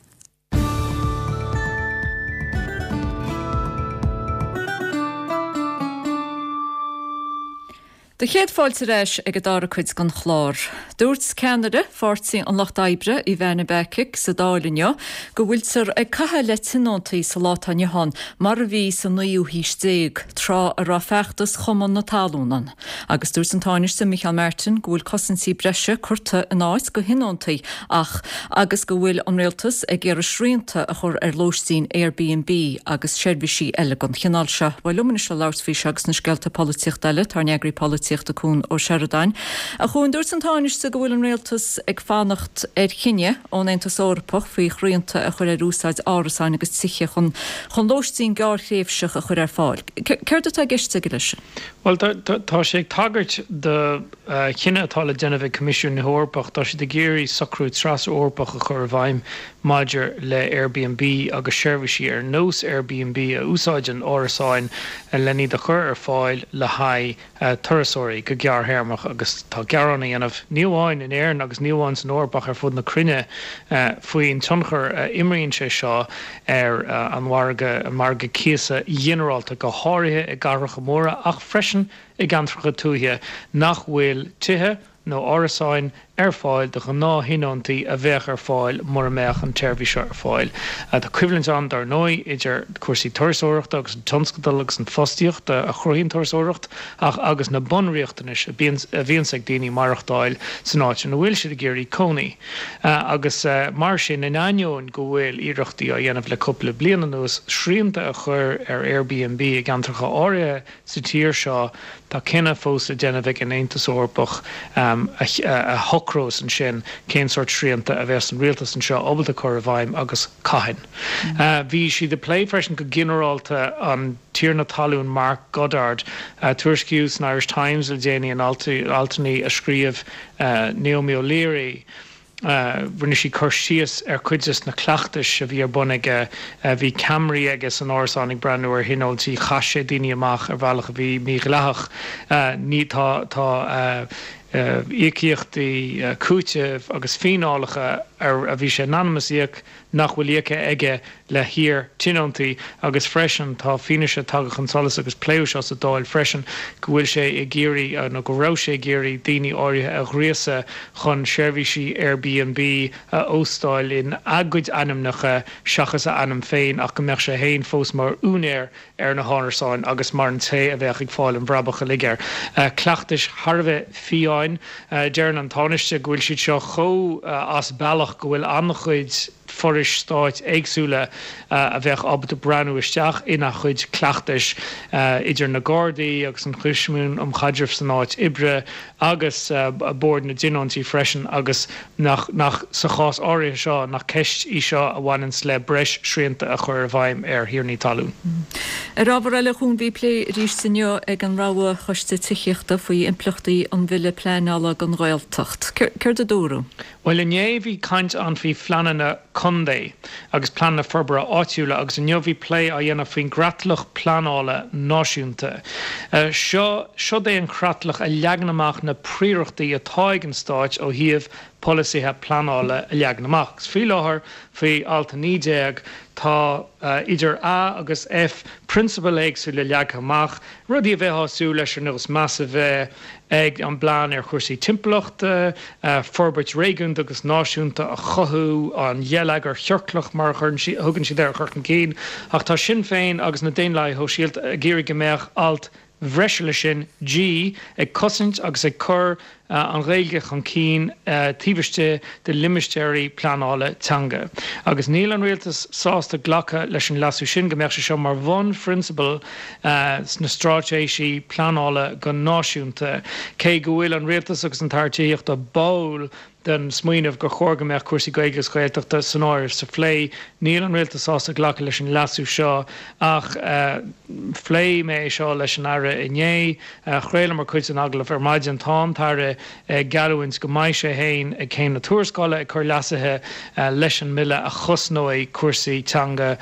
Speaker 1: Do chéad fáilte ar ais ag an dara cuid den chlár. Dúirt ceannaire Pháirtí an Lucht Oibre, Ivana Bacik, sa Dáil inniu go bhfuiltear ag caitheamh le tionóntaí sa lá atá inniu ann mar a bhí sa naoú haois déag, tráth a raibh feachtas Chumann na Talún ann. Agus dúirt an Tánaiste Micheál Martin go bhfuil cosaintí breise curtha in áit do thionóntaí ach agus go bhfuil an Rialtas ag iarraidh srianta a chur ar lóistín Airbnb agus seirbhísí eile den chineál seo. Bhuel, liom anois le labhairt faoi seo agus na scéalta polaitíochta eile, tá ár n-eagraí polaitíochta Cuan Ó Seireadáin. A Chuain, dúirt an Tánaiste go bhfuil an Rialtas ag fanacht ar chinneadh ón Aontas Eorpach faoi shrianta a chur ar úsáid árasáin agus tithe chun chun lóistín gearrthréimhseach a chur ar fáil. Céard atá i gceist aige leis sin?
Speaker 16: Bhuel, tá sé ag tagairt do chinneadh atá le déanamh ag Coimisiún na hEorpach. Tá siad ag iarraidh socrú tras-Eorpach a chur i bhfeidhm maidir le Airbnb agus seirbhísí ar nós Airbnb a úsáideann árasáin len iad a chur ar fáil le haghaidh turasóirí go gearrthéarmach agus tá gearán á dhéanamh, ní amháin in Éirinn agus ní amháin san Eoraip ach ar fud na cruinne, faoin tionchar a imríonn sé seo ar an mhargadh, an margadh cíosa ghinearálta, go háirithe i gcathracha móra ach freisin i gceantracha tuaithe nach bhfuil tithe nó árasáin ar fáil do ghnáth-thionóntaí a bheadh ar fáil mura mbeadh an tseirbhís seo ar fáil. Tá coimhlint ann, dar ndóigh, idir cúrsaí turasóireachta agus an tionscadal agus an fostaíocht a chruthaíonn turasóireacht ach agus na bunriachtanais a bhíonns ag daoine maireachtáil san áit ina bhfuil siad ag iarraidh cónaí. Agus mar sin, in ainneoin go bhfuil iarrachtaí á dhéanamh le cúpla bliain anuas srianta a chur ar Airbnb i gceantracha áirithe sa tír seo, tá cinneadh fós le déanamh ag an Aontas Eorpach a shocrós ansin cén sórt srianta a bheas an rialtas anseo ábalta cur i bhfeidhm agus cathain. Bhí siad ag plé freisin go ginearálta an tiarna talún Mark Goddard. Tuairiscíodh san Irish Times le déanaí in altanna a scríobh Naomi O'Leary, Rinne sí cur síos ar chuid des na cleachtais a bhí ar bun aige. Bhí ceamaraí aige san árasán ag breathnú ar thionóntaí. Chaith sé daoine amach ar bhealach a bhí mídhleathach. Ní, tá, tá íocaíochtaí cúitimh agus fíneálacha ar a bhí sé in ainm is íoc nach bhfuil íoctha aige le hiar-tionóntaí agus freisin tá fianaise tagtha chun solais agus pléadh seo sa Dáil freisin go bhfuil sé ag iarraidh nó go raibh sé ag iarraidh daoine áirithe a ghríosadh chun seirbhísí Airbnb a óstáil in a gcuid ainmneacha seachas a ainm féin ach go mbeadh sé féin fós mar úinéir ar na hárasáin agus mar an té a bheadh ag fáil an bhrabach uilig air. Cleachtais thar a bheith fiáin. Deireann an Tánaiste go bhfuil siad seo chomh as bealach go bhfuil an-chuid forais stáit éagsúla a bheadh ábalta breathnú isteach ina chuid cleachtais, idir na Gardaí agus an Choimisiún um Chaidreamh san Áit Oibre agus Bord na dTionóntaí freisin agus nach, nach, sa chás áirithe seo, nach ceist í seo a bhaineanns le breis srianta a chur i bhfeidhm ar thiarnaí talún.
Speaker 1: Ar ábhar eile, a Chuain, bhí plé arís inniu ag an Rogha Choiste Tithíochta faoi impleachtaí an Bhille Pleanála don Ghaeltacht. Céard a dúradh?
Speaker 16: Bhuel, inné bhí caint ann faoi phleananna contae agus pleananna forbartha áitiúla agus inniu bhí plé á dhéanamh faoin gcreatlach pleanála náisiúnta. Seo, seod é an chreatlach a leagann amach na príorachtaí atá ag an stáit ó thaobh. polasaithe pleanála a leagan amach. Agus faoi láthair, faoi Alt 19, tá idir A agus F, prionsabail éagsúla leagtha amach, rudaí a bheifeá ag súil leis ar nós meas a bheith ag an bplean ar chúrsaí timpeallachta, forbairt réigiúnda agus náisiúnta a chothú, an gheilleagar chiorclach mar a thugann siad air a chur chun cinn. Ach tá Sinn Féin agus na Daonlathaithe Shóisialta ag iarraidh go mbeadh alt bhreise leis sin, G, ag cosaint agus ag cur an Ghaeilge chun cinn taobh istigh de limistéirí pleanála teanga. Agus níl an Rialtas sásta glacadh leis an leasú sin, go mbeadh sé seo mar bhunphrionsabal sna stráitéisí pleanála go náisiúnta. Cé go bhfuil an Rialtas agus an tAire Tithíochta báúil den smaoineamh gur chóir go mbeadh cúrsaí Gaeilge agus Gaeltachta san áireamh sa phlé. Níl an Rialtas sásta glacadh leis an leasú seo ach phléigh mé é seo leis an Aire inné. Chraolamar cuid den agallamh ar maidin. Tá an tAire ag geallúint go mbeidh sé féin ag Céim na Tuarascála ag cur leasuithe leis an mBille a chosnóidh cúrsaí teanga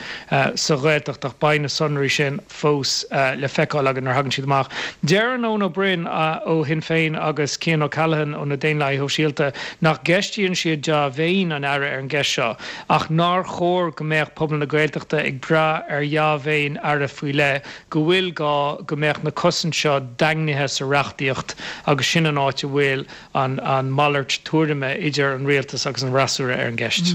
Speaker 16: sa Ghaeltacht ach beidh na sonraí sin fós le feiceáil againn nuair a thagann siad amach. Deireann Eoin Ó Broin ó Shinn Féin agus Cian O'Callaghan ó na Daonlathaithe Shóisialta nach gceistíonn siad dea-mhéin an Aire ar an gceist seo ach nár chóir go mbeadh pobal na Gaeltachta ag brath ar dhea-mhéin Aire faoi leith, go bhfuil gá go mbeadh na cosaint seo daingnithe sa reachtaíocht agus sin an áit a bhfuil an malairt tuairime idir an rialtas agus an fhreasúra ar an gceist.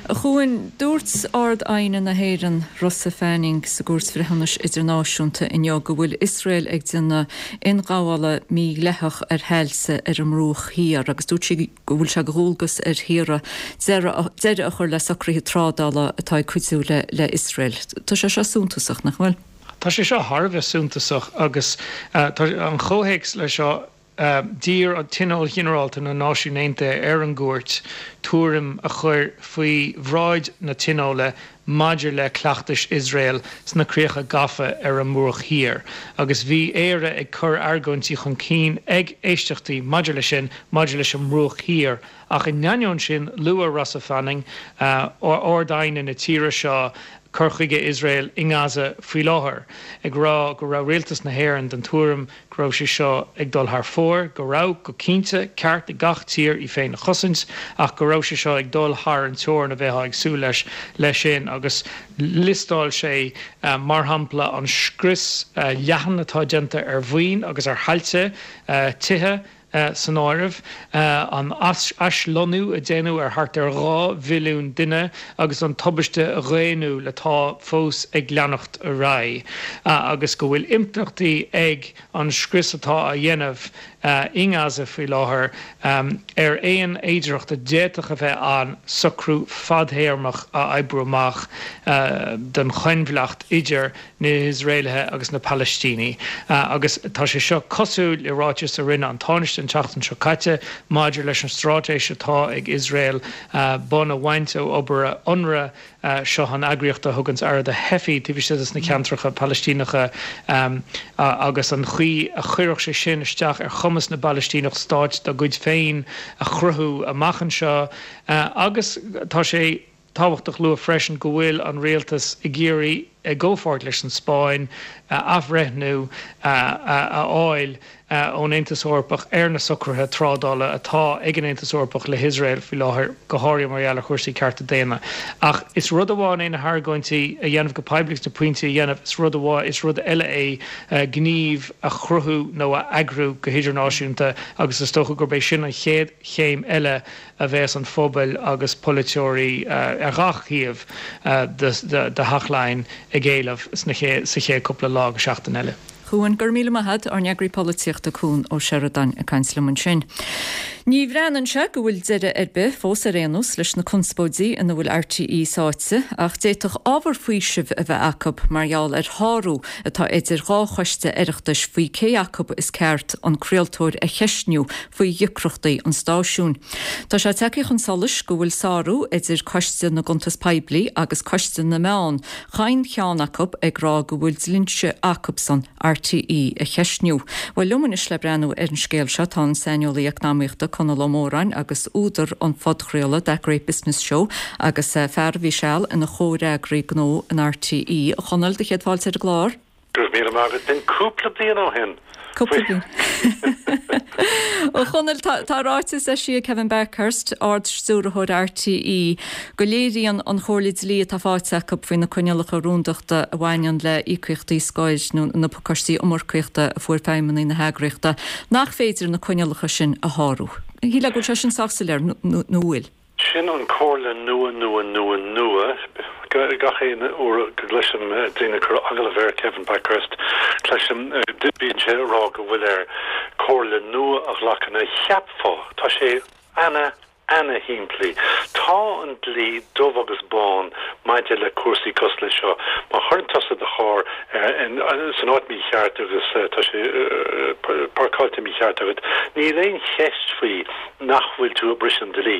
Speaker 1: A Chuain, dúirt Ard-Aighne na hÉireann, Rosa Fanning, sa gCúirt Bhreithiúnais Idirnáisiúnta inniu go bhfuil Iosrael ag déanamh ionghabhála mídhleathach ar thailte ar an mBruach Thiar agus dúirt sí go bhfuil sé de dhualgas ar thíortha deireadh a chur le socruithe trádála atá ag cuidiú le hIosrael. Tá sé seo suntasach, nach bhfuil?
Speaker 16: Tá sé seo thar a bheith suntasach agus tá an comhthéacs leis seo D'iarr Tionól Ginearálta na Náisiún Aontaithe ar an gCúirt tuairim a chur faoi bhráid na Tionóla maidir le cleachtais Iosrael sna críocha gafa ar an mBruach Thiar agus bhí Éire ag cur argóintí chun cinn ag éisteachtaí maidir leis sin maidir leis an mBruach Thiar ach in ainneoin sin luaigh Rosa Fanning, Ard-Aighne na tíre seo, cur chuige Iosrael i nGaza faoi láthair, ag rá go raibh rialtas na hÉireann den tuairim go raibh sé seo ag dul thar fóir, go raibh, go cinnte, ceart ag gach tír í féin a chosaint, ach go raibh sé seo ag dul thar an teorainn a bheifeá ag súil leis leis sin agus liostáil sé, mar shampla, an scrios leathan atá déanta ar mhaoin agus ar thailte, tithe, san áireamh, an aislonnú a déanadh ar thart ar 2 mhilliún duine agus an tubaiste dhaonnúil atá fós ag leanacht ar aghaidh, agus go bhfuil impleachtaí ag an scrios atá á dhéanamh i nGaza faoi láthair ar aon fhéidearthacht a d'fhéadfadh a bheith ann socrú fadthéarmach a oibriú amach don choinbhleacht idir na hIosraelaithe agus na Palaistínigh agus tá sé seo cosúil le ráiteas a rinne an Tánaiste an tseachtain seo caite maidir leis an straitéis atá ag Iosrael bonn a bhaint ó obair Unrwa, seo an eagraíocht a thuganns aire do theifigh taobh istigh de na ceantracha Palaistíneacha agus an chaoi a chuirfeadh sé sin isteach ar chumas na bPalaistíneach stáit dá gcuid féin a chruthú amach anseo agus tá sé tábhachtach lua freisin go bhfuil an rialtas ag iarraidh, i gcomhpháirt leis an Spáinn, athbhreithniú a fháil ón Aontas Eorpach ar na socruithe trádála atá ag an Aontas Eorpach le hIosrael faoi láthair, go háirithe mar gheall ar chúrsaí cearta daonna. Ach is rud amháin é na hargóintí a dhéanamh go poiblí agus na pointí a dhéanamh, is rud amháin, is rud eile é gníomh a chruthú nó a eagrú go hidirnáisiúnta agus is dócha gurb é sin an chéad chéim eile a bheas an pobal agus polaiteoirí ar gach thaobh de Theach Laighean ag éileamh sa chéad cúpla lá go seachtain eile.
Speaker 1: Chuan, Go raibh míle maith a't, ár n-eagraí polaitíochta Cuan Ó Seireadáin ag caint liom ansin. Ní bhreathnaíonn sé go bhfuil deireadh ar bith, fós ar aon nós, leis na conspóidí ina bhfuil RTÉ sáite, ach d'fhéadfadh ábhar faoisimh a bheith acu mar gheall ar shárú atá idir dhá choiste Oireachtais faoi cé acu is ceart an craoltóir a cheistniú faoi dheacrachtaí an stáisiúin. Tá sé tagtha chun solais go bhfuil sárú idir Coiste na gCuntas Poiblí agus Coiste na Meán, chaon cheann acu ag rá go bhfuil dlínse acubsan RTÉ a cheistniú. Bhuel, liom anois le breathnú ar an scéal seo tá an saineolaí eacnamaíochta Conall Ó Móráin agus údar an phodchraoladh That Great Business Show agus fear a bhí seal ina chomhfhreagraí gnó in RTÉ. A Chonaill, do chéad fáilte ar an gclár.
Speaker 17: Go raibh míle maith agat. B'in cúpla bliain ó shin.
Speaker 1: Cúpla bliain. A Chonaill, tá ráiteas eisithe ag Kevin Bakhurst, Ard-Stiúrthóir RTÉ, go léiríonn an chomhairle dlí atá faighte acu faoi na coinníollacha rúndachta a bhaineann le híocaíochtaí scoir nó na pacáistí iomarcaíochta a fuair feidhmeannaigh na heagraíochta, nach féidir na coinníollacha sin a shárú. Shílfeá go bhfuil sé sin sách soiléir, nó an bhfuil?
Speaker 17: Sin an comhairle nua nua nua nua. Gach aon uair go gcloisim daoine ag cur agallamh ar Kevin Bakhurst, cloisim, bíonn sé ag rá go bhfuil air comhairle nua a ghlacadh. Now cheapfá, tá sé ana, ana shimplí. Tá an dlí dubh agus bán maidir le cúrsaí cosúil le seo. Má chuireann tusa do charr san áit mícheart agus tá sé páirceáilte mícheart agat, níl aon cheist faoi nach bhfuil tú ag briseadh an dlí.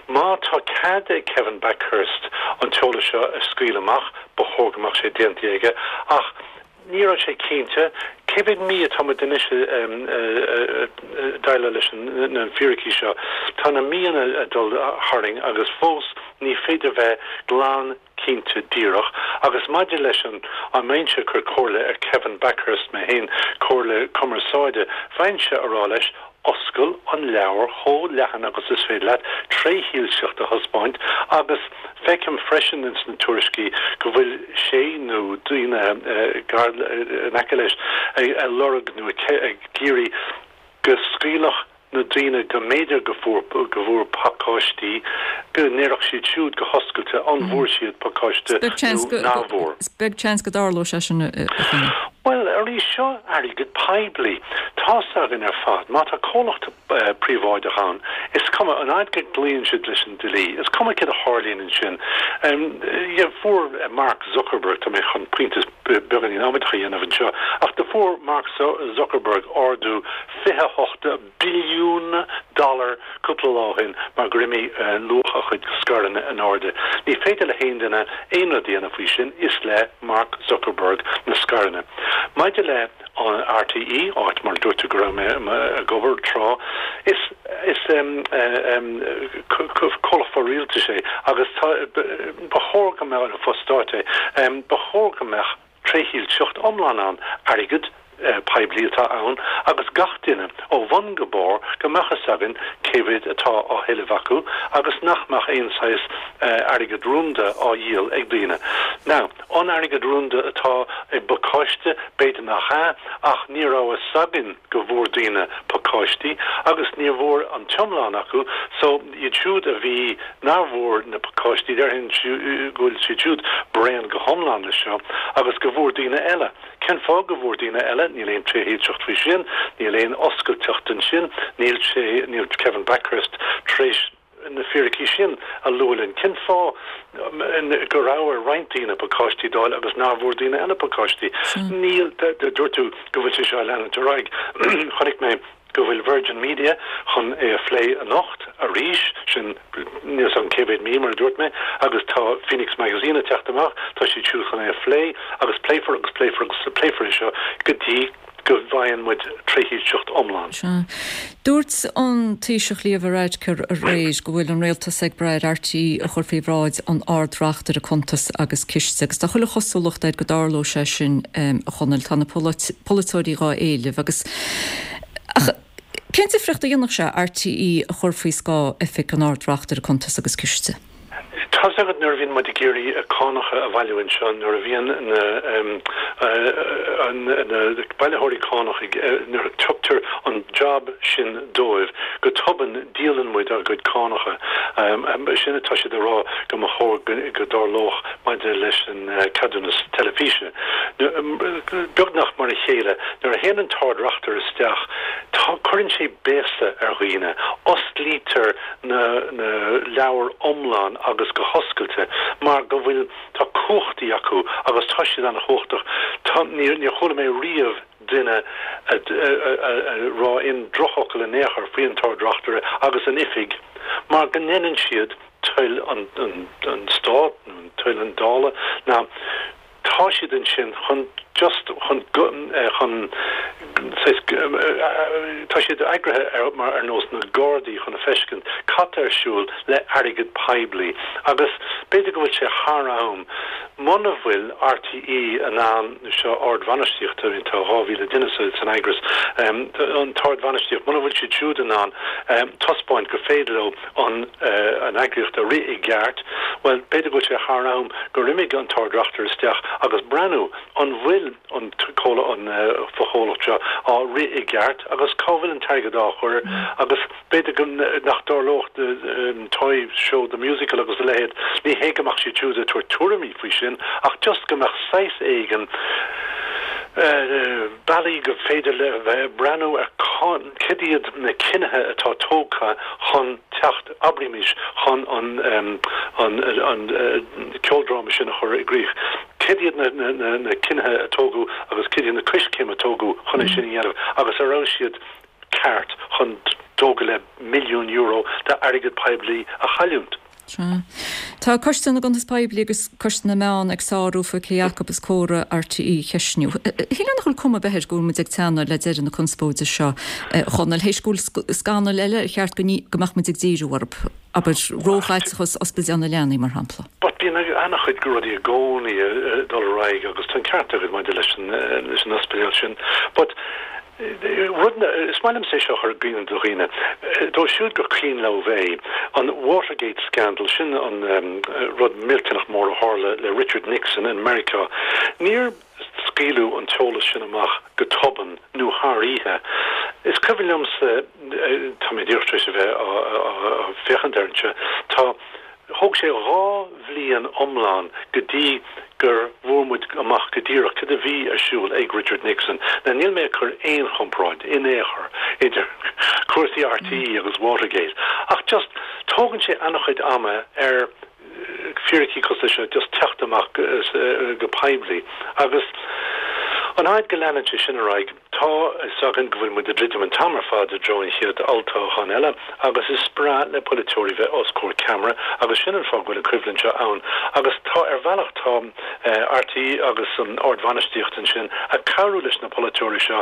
Speaker 17: Má tá cead ag Kevin Bakhurst an t-eolas seo a scaoileadh amach, ba chóir go mbeadh sé déanta aige, ach ní raibh sé cinnte. Cé mhéad mí atá muid anois ag déileáil leis na fíricí seo? Tá na míonna ag dul tharainn agus fós ní féidir bheith glan cinnte díreach. Agus maidir leis an, an mbeinnse ag cur comhairle ar Kevin Bakhurst mé féin, comhairle cumarsáide, bheinnse a rá leis, oscail an leabhar chomh leathan agus is féidir leat, trédhearcacht a thaispeáint agus feicim freisin ins na tuairiscí go bhfuil sé nó daoine gar in aice leis ag lorg nó ag iarraidh go scaoilfeadh na daoine go mb'fhéidir go fuair go bhfuair pacáistí, go ndéarfadh siad siúd go hoscailte an bhfuair siad pacáiste nó nach bhfuair.
Speaker 1: Is beag seans go dtarlódh sé sin, a Chonaill.
Speaker 17: Bhuel, arís, seo airgead poiblí. Tá's againn ar fad, má tá comhlacht príobháideach ann, is cuma, an fhaid go gcloíonn siad leis an dlí, is cuma céard a tharlaíonn ansin. Fuair Mark Zuckerberg, tá mé chun pointe beagáinín amaideach a dhéanamh anseo, ach do fuair Mark Zuckerberg ardú 28 billiún dollar cúpla lá ó shin mar gur imigh luach a chuid scaireanna in airde. Ní féidir le haon duine aon rud a dhéanamh faoi sin, is le Mark Zuckerberg na scaireanna. Maidir le RTÉ, áit mar a dúirt tú go raibh mé ag obair tráth, is is comhlacht fo-rialtais é agus tá ba chóir go mbeadh, fo-stáit é, ba chóir go mbeadh trédhearcacht iomlán ann, airgead poiblí atá ann agus gach duine, ó bhun go barr, go mbeadh fhios againn cé mhéad atá á thuilleamh acu agus nach mbeadh aon saghas airgead rúnda á dhíol ag daoine. Now, an airgead rúnda atá i bpacáiste? B'fhéidir nach ea, ach ní raibh fhios againn go bhfuair daoine pacáistí agus ní bhfuair an t-iomlán acu so, Iad siúd a bhí, nár bhfuair na pacáistí, déarfainn go bhfuil siad siúd bréan go hiomlán leis seo agus go bhfuair daoine eile. Cén fáth go bhfuair daoine eile? Níl aon trédhearcacht faoi sin, níl aon oscailteacht ansin, níl sé, níl Kevin Bakhurst tar éis na fíricí sin a lua linn. Cén fáth go raibh ar roinnt daoine pacáistí d'fháil agus nár bhfuair daoine eile pacáistí? Níl, dúirt tú go bhfuil sé seo ag leanúint ar aghaidh. Chonaic mé. go bhfuil Virgin Media chun é a phlé anocht arís, sin níl 's agam cé mhéad mí mar a dúirt mé, agus tá Phoenix Magazine ag teacht amach, tá siad siúd chun é a phlé agus pléifear agus pléifear agus pléifear é seo go dtí go bhfaigheann muid trédhearcacht iomlán.
Speaker 1: Sea. Dúirt an Taoiseach Leo Varadkar aréir go bhfuil an rialtas ag brath ar RTÉ a chur faoi bhráid an Ard-Reachtaire Cuntas agus Ciste agus tá chuile chosúlacht air go dtarlóidh sé sin, a Chonaill. Tá na polaiteoirí dhá éileamh agus Ach cén difríocht a dhéanfadh sé RTÉ a chur faoi scáth Oifig an Ard-Reachtaire Cuntas agus Ciste?
Speaker 17: Tá's agat nuair a bhíonn muid ag iarraidh cánacha a bhailiú anseo, nuair a bhíonn na na bailitheoirí cánach ag, nuair a tugtar an job sin dóibh, go tobann díolann muid ár gcuid cánacha. Sin atá siad a rá go mba chóir go dtarlódh maidir leis an ceadúnas teilifíse. Beagnach mar a chéile, nuair a théann an tArd-Reachtaire isteach, tá, cuireann sé béasa ar dhaoine, osclaítear na na leabhair iomlán agus go hoscailte mar go bhfuil, tá cumhachtaí acu agus tá siad an-chumhachtach. Tá, níor, níor chuala mé riamh duine a rá aon drochfhocal in aon chor faoi an tArd-Reachtaire agus an oifig mar go ndéanann siad toil an, an, an Stát nó toil an Dála. Now. Tá siad ansin chun just chun chun saghas tá siad eagraithe ar mar ar nós na Gardaí chun a feiscint cad tá ar siúl le airgead poiblí agus b'fhéidir go bhfuil sé thar am muna bhfuil RTÉ in ann seo ardbhainistíocht I mean tá 2,000 duine sa san eagras an t-ardbhainistíocht muna bhfuil siad siúd in ann taispeáint gur féidir leo an an eagraíocht a rith i gceart, bhuel, b'fhéidir go bhfuil sé thar am gur imigh an tArd-Reachtaire isteach agus breathnú an bhfuil an an fochomhlacht seo á rith i gceart agus cá bhfuil an t-airgead á chur agus b'fhéidir go nach dtarlódh Toy Show the Musical agus a leithéid, ní hé go mbeadh siad siúd ag tabhairt tuairimí faoi sin ach just go mbeadh saghas éigin bealaí go féidir le bheith ag breathnú ar Cad iad na cinnithe atá tógtha chun teacht, abraímis, chun an ceoldráma sin a chur i gcrích? Cad iad na cinnithe a tógadh agus cad iad na coiscéim a tógadh chun é sin a dhéanamh agus an raibh siad ceart chun dó go leith milliún euro d'airgead poiblí a chailliúint?
Speaker 1: Sea. Tá Coiste na gCuntas Poiblí agus Coiste na Meán ag sárú faoi cé acu is córa RTÉ a cheistniú. Shílfeá nach bhfuil cuma ar bith air go bhfuil muid ag teannadh le deireadh na conspóide seo, a Chonaill, théis go bhfuil scannail eile ar cheart go mbeadh muid ag díriú orthu, abair, róchaiteachas Ospidéal na Leanaí, mar shampla.
Speaker 17: But bíonn an-chuid rudaí i gcónaí ag dul ar aghaidh agus tá an ceart agat maidir leis an ospidéal sin. But Rud, is maith liomsa é seo a chur i gcuimhne do dhaoine, dóibh siúd gur cuimhin leo é, an Watergate scandal, sin an rud millteanach mór a tharla le Richard Nixon in Meiriceá. Níor scaoileadh an t-eolas sin amach go tobann nó thar oíche. Is cuimhin liomsa, tá mé díreach tar éis a bheith á féachaint air anseo, tá, Thóg sé 2 bhliain iomlán go dtí gur bhfuair muid amach go díreach cad a bhí ar siúl ag Richard Nixon. Now níl mé ag cur aon chomparáid in aon chor idir cúrsaí RTÉ agus Watergate ach just tógann sé an-chuid ama ar fíricí cosúil leis seo just teacht amach go poiblí agus an fhaid go leanann sé sin ar aghaidh Tá a fhios againn go bhfuil muid ag druidim an t-am ar fad i dtreo an chéad olltoghcháin eile agus is breá le polaiteoirí bheith os comhair ceamara agus sin an fáth go bhfuil an choimhlint seo ann agus tá ar bhealach tá RTÉ agus an ardbhainistíocht ansin ag cabhrú leis na polaiteoirí seo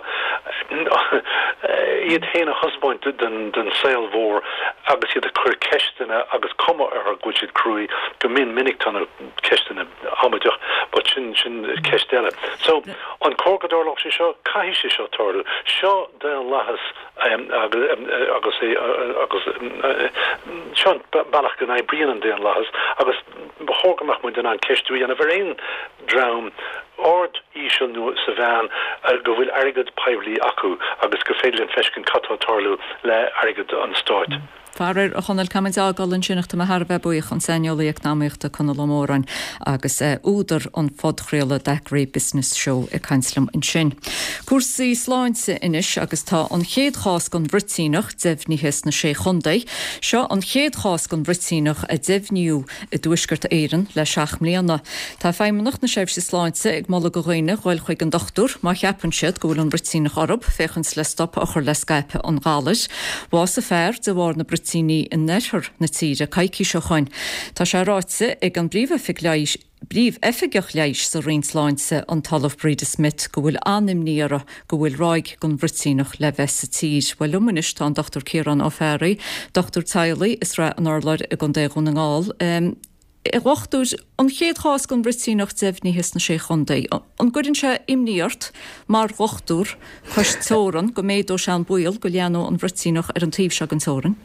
Speaker 17: iad féin a thaispeáint don saol mhór agus iad ag cur ceisteanna agus cuma orthu go bhfuil siad cruaidh go mion minic tá na ceisteanna amaideach but sin sin ceist eile. So an cóir go dtarlódh sé seo? Caithfidh sé seo tarlú. Seo daonlathas agus é agus seo an bealach go n-oibríonn an daonlathas agus ba chóir go mbeadh muid in ann ceistiú a dhéanamh ar aon dream ard, íseal nó sa mheán go bhfuil airgead poiblí acu agus gur féidir linn feiscint cad tá ag tarlú le airgead an stáit.
Speaker 1: Faraor, a Chonaill, caithfidh muid é a fhágáil ansin ach tá mé thar a bheith buíoch, an saineolaí eacnamaíochta Conall Ó Móráin agus údar an phodchraoladh Daiquiri Business Show ag caint liom ansin. Cúrsaí sláinte anois agus tá an chéad chás den bhruitíneach deimhnithe sna Sé Chontae. Seo an chéad chás den bhruitíneach a deimhníodh i dTuaisceart Éireann le 7 mbliana. Tá Feidhmeannacht na Seirbhíse Sláinte ag moladh do dhaoine dhul chuig an dochtúir má cheapann siad go bhfuil an bhruitíneach orthu, féachaint le stop a chur le scaipeadh an ghalair. Bhásaigh fear de bharr na bruitíní in oirthear na tíre coicís ó shoin. Tá sé ráite ag an bPríomhoifig Leighis, Príomh-Oifigeach Leighis sa Roinn Sláinte, an tOllamh Breda Smith, go bhfuil an-imní orthu go bhfuil ráig den bhruitíneach le bheith sa tír. Bhuel, liom anois tá an Dr Ciarán Ó Fearraigh, dochtúir teaghlaigh i Srath an Urláir i gContae Dhún na nGall. A dhochtúir, an chéad chás den bhruitíneach deimhnithe sna Sé Chontae, an gcuireann sé imní ort mar dhochtúir cois teorann go méadóidh sé an baol go leathnóidh an bhruitíneach ar an taobh seo den teorainn?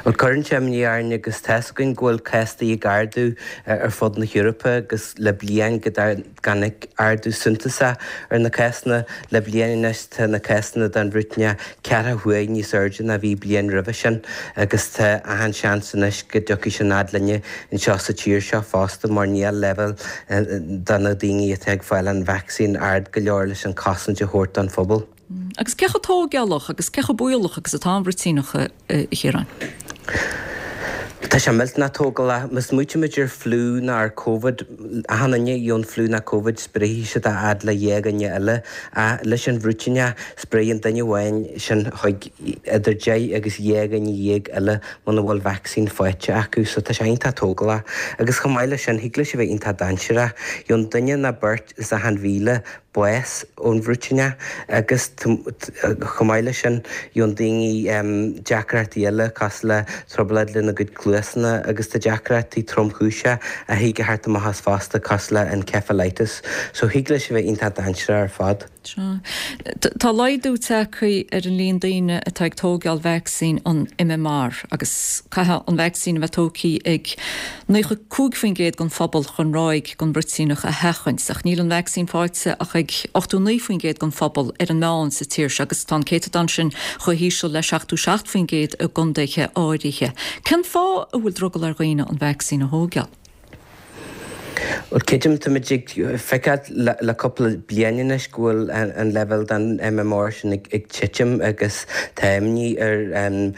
Speaker 18: Bhuel, cuireann sé imní orainn agus tá's againn go bhfuil cásanna ag ardú ar fud na hEorpa agus le bliain go dtáinig ardú suntasach ar na cásanna. Le bliain anois tá na cásanna den bhruitíneach ceathracha huair níos airde ná bhí bliain roimhe sin agus tá achan seans anois go dtiocfaidh sin fhad linne anseo sa tír seo fosta mar níl leibhéal de na daoine atá ag fáil an vacsaín ard go leor leis an chosaint a thabhairt don phobal.
Speaker 1: Agus cé chomh tóigeálach agus cé chomh baolach agus atá an bhruitíneach, a Chiaráin?
Speaker 18: Tá sé millteanach tógálach. Má smaoitímid ar fliú nó ar Covid, achan duine a gheobhann fliú nó Covid spréifidh siad é a fhad le dhá dhuine eile. Ach leis an bhruitíneach, spréifidh an duine amháin sin chuig idir deich agus 12 dhuine eile muna bhfuil vacsaín faighte acu. So tá sé iontach tógálach. Agus chomh maith leis sin, thig leis a bheith iontach dainséarach. Gheobhann duine nó beirt as achan 1,000 bás ón bhruitíneach agus chomh maith leis sin gheobhann daoine deacrachtaí eile cosúil le trioblóid lena gcuid cluasanna agus tá deacrachtaí tromchúiseacha a thig a theacht amach as fosta cosúil le encephalitis so thig leis a bheith iontach dainséarach ar fad.
Speaker 1: Sea. Tá laghdú tagtha ar an líon daoine atá ag tóigeáil vacsaín an MMR agus caithfidh an vacsaín a bheith tógtha ag 95% den phobal chun ráig den bhruitíneach a sheachaint, ach níl an vacsaín faighte ach ag 89% den phobal ar an meán sa tír seo agus tá an céatadán sin chomh híseal le 77% i gcontaetha áirithe. Cén fáth a bhfuil drogall ar dhaoine an vacsaín a thóigeáil?
Speaker 18: Bhuel, creidim, táimid ag feiceáil le cúpla bliain anois go bhfuil an leibhéal den MMR sin ag titim agus tá imní ar